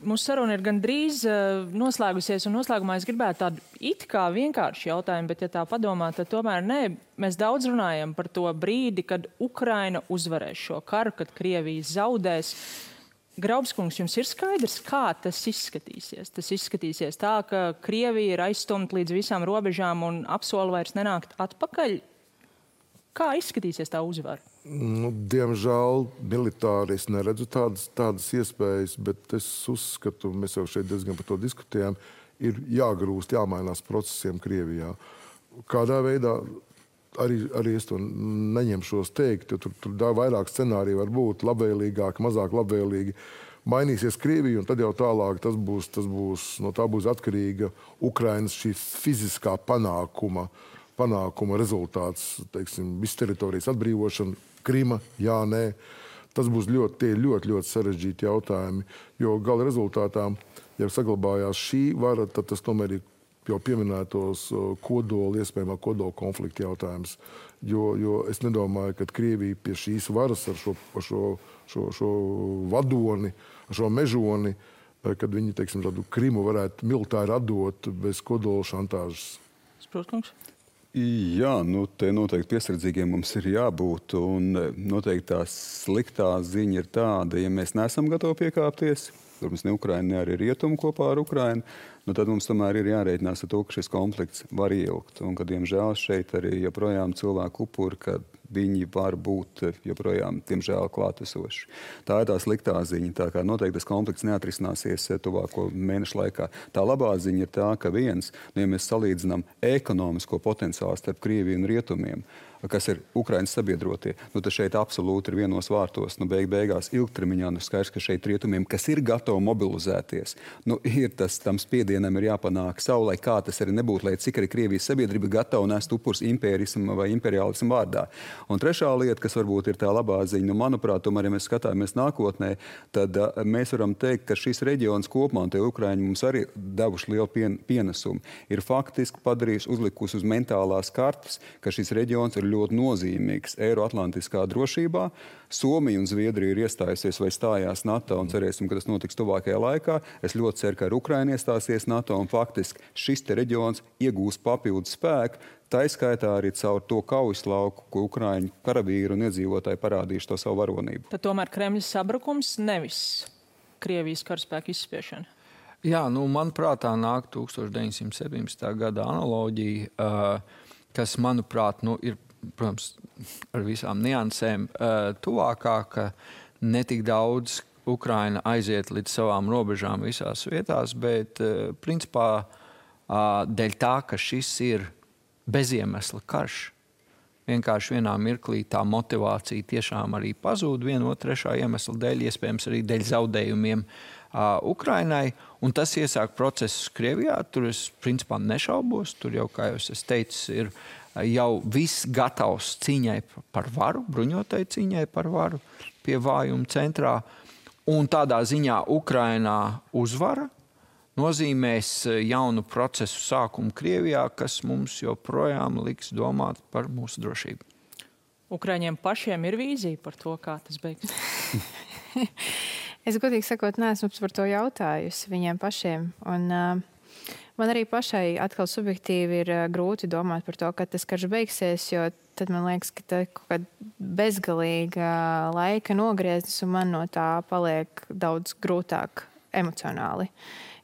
Mūsu saruna ir gandrīz noslēgusies, un noslēgumā es gribētu tādu it kā vienkāršu jautājumu, bet, ja tā padomā, tad tomēr nē. Mēs daudz runājam par to brīdi, kad Ukraina uzvarēs šo karu, kad Krievija zaudēs. Graubskungs, jums ir skaidrs, kā tas izskatīsies? Tas izskatīsies tā, ka Krievija ir aizstumta līdz visām robežām un apsola vairs nenākt atpakaļ. Kā izskatīsies tā uzvara? Diemžēl militāri es neredzu tādas iespējas, bet es uzskatu, mēs jau šeit diezgan par to diskutējām, ir jāgrūst, jāmainās procesiem Krievijā. Kādā veidā arī es to neņemšos teikt, jo tur vairāk scenāriju var būt labvēlīgāk, mazāk labvēlīgi. Mainīsies Krievija, un tad jau tālāk tas būs, no tā būs atkarīga Ukrainas šī fiziskā panākuma rezultāts, teiksim, visu teritorijas atbrīvošana, Krima, jā, nē. Tas būs ļoti sarežģīti jautājumi, jo gala rezultātā, ja saglabājās šī vara, tad tas tomēr ir jau pieminētos iespējamā kodola konflikta jautājums. Jo es nedomāju, ka Krievija pie šīs varas ar šo vadoni, ar šo mežoni, kad viņi, teiksim, tādu Krimu varētu militāri atdot bez kodola šantāžas. Sprūtkungs? Jā, te noteikti piesardzīgiem mums ir jābūt, un noteikti tā sliktā ziņa ir tāda, ja mēs neesam gatavi piekāpties, protams, ne Ukraina, ne arī Rietumu kopā ar Ukrainu, tad mums tomēr ir jārēķinās ar to, ka šis konflikts var ilgt, un ka, diemžēl, šeit arī joprojām cilvēku upuri, ka viņi var būt joprojām, diemžēl, klātesoši. Tā ir tā sliktā ziņa, tā kā noteikti tas konflikts neatrisināsies tuvāko mēnešu laikā. Tā labā ziņa ir tā, ka ja mēs salīdzinām ekonomisko potenciālu starp Krieviju un Rietumiem, kas ir Ukrainas sabiedrotie, tad šeit absolūti ir vienos vārtos. Beigās ilgtermiņā skaidrs, ka šeit Rietumiem, kas ir gatavi mobilizēties, ir tam spiedienam ir jāpanāk savu, lai kā tas arī nebūtu, lai cik arī Krievijas sabiedrība gatava nest upurs impērismu vai imperiālismu vārdā. Un trešā lieta, kas varbūt ir tā labā ziņa, manuprāt, tomēr, ja mēs skatāmies nākotnē, tad mēs varam teikt, ka šis reģions kopumā, un tie Ukraiņi mums arī devuši lielu pienesumu, ir faktiski uzlikusi uz mentālās kartes, ka šis reģions ir ļoti nozīmīgs Eiroatlantiskā drošībā. Somija un Zviedrija ir iestājusies vai stājās NATO, un cerēsim, ka tas notiks tuvākajā laikā. Es ļoti ceru, ka Ukraina iestāsies NATO, un faktiski šis te reģions iegūs papildus spēku. Tā izskaitā arī caur to kaujas lauku, ko Ukraiņu karavīri un iedzīvotāji parādījuši to savu varonību. Tad tomēr Kremļa sabrukums, nevis Krievijas karaspēku izspiešana. Jā, manuprāt, tā nāk 1917. gada analoģija, kas, manuprāt, ir, protams, ar visām niansēm tuvākā, ka netik daudz Ukraina aiziet līdz savām robežām visās vietās, bet principā dēļ tā, ka šis ir beziemesla karš. Vienkārši vienā mirklī tā motivācija tiešām arī pazūd viena otra trešā iemesla dēļ, iespējams arī dēļ zaudējumiem Ukrainai. Un tas iesāk procesus Krievijā. Tur es principā nešaubos. Tur jau, kā jau es teicu, ir jau viss gatavs cīņai par varu, bruņotai cīņai par varu pie vājuma centrā. Un tādā ziņā Ukrainā uzvara nozīmēs jaunu procesu sākumu Krievijā, kas mums joprojām liks domāt par mūsu drošību. Ukraiņiem pašiem ir vīzija par to, kā tas beigs? Es godīgi sakot, neesmu par to jautājusi viņiem pašiem. Un, man arī pašai atkal subjektīvi ir grūti domāt par to, kad tas karš beigsies, jo tad man liekas, ka tā kaut kāda bezgalīga laika nogrieznis, un man no tā paliek daudz grūtāk emocionāli.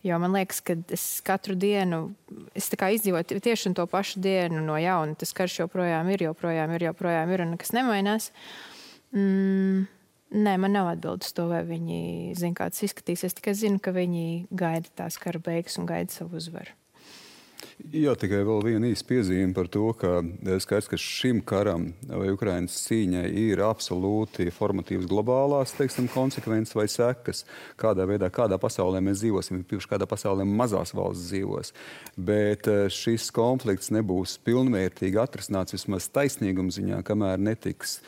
Jo man liekas, ka es katru dienu, es tā kā izdzīvoju tieši to pašu dienu no jauna. Tas karš joprojām ir, un nekas nemainās. Nē, man nav atbildes to, vai viņi zina, kā tas izskatīsies. Tikai zinu, ka viņi gaida tās kara beigas un gaida savu uzvaru. Jā, tikai vēl viena īsta piezīme par to, ka skaidrs, ka šim karam vai Ukrainas cīņai ir absolūti formatīvas globālās, konsekvences vai sekas, kādā veidā, kādā pasaulē mēs dzīvosim, kādā pasaulē mazās valsts dzīvos. Bet šis konflikts nebūs pilnvērtīgi atrisināts vismaz taisnīguma ziņā, kamēr netiks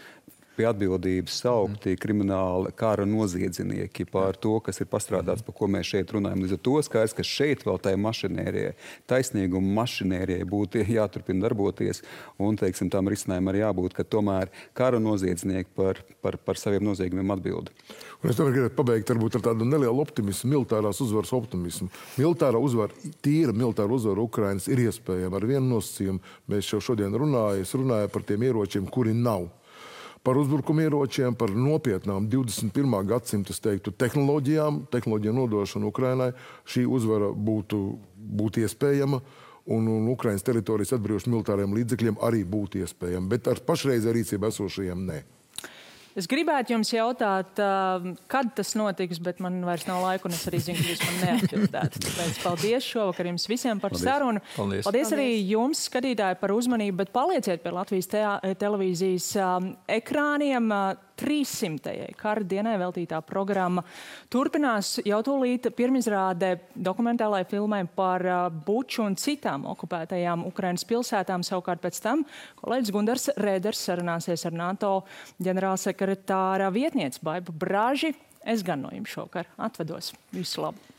pie atbildības saukti krimināli kara noziedznieki par to, kas ir pastrādāts, par ko mēs šeit runājam. Līdz ar to skaidrs, ka šeit vēl tai mašinērijai, taisnīguma mašinērijai būtu jāturpina darboties, un, tam risinājumam arī jābūt, ka tomēr kara noziedznieki par saviem noziegumiem atbild. Un es tomēr gribētu pabeigt varbūt ar tādu nelielu optimismu, militārās uzvaras optimismu. Tīra militāra uzvara Ukrainas ir iespējama ar vienu nosacījumu. Mēs jau šodien runāju par tiem ieročiem, kuri nav. Par uzbrukumu ieročiem, par nopietnām 21. gadsimta, tehnoloģiju nodošanu Ukrainai. Šī uzvara būtu iespējama, un Ukrainas teritorijas atbrīvošana militāriem līdzekļiem arī būtu iespējama, bet ar pašreizē rīcībā esošajiem nē. Es gribētu jums jautāt, kad tas notiks, bet man vairs nav laika, un es arī zinu, ka jūs man neatbildētu. Tāpēc paldies šovakar jums visiem par sarunu. Paldies arī jums, skatītāji, par uzmanību, bet palieciet pie Latvijas televīzijas ekrāniem. 300. kara dienai veltītā programma turpinās jau tūlīt pirmizrāde dokumentālai filmai par Buču un citām okupētajām Ukrainas pilsētām. Savukārt pēc tam kolēģis Gundars Rēders sarunāsies ar NATO ģenerālsekretāra vietnieci Baibu Braži. Es gan no jums šovakar atvedos. Visu labu!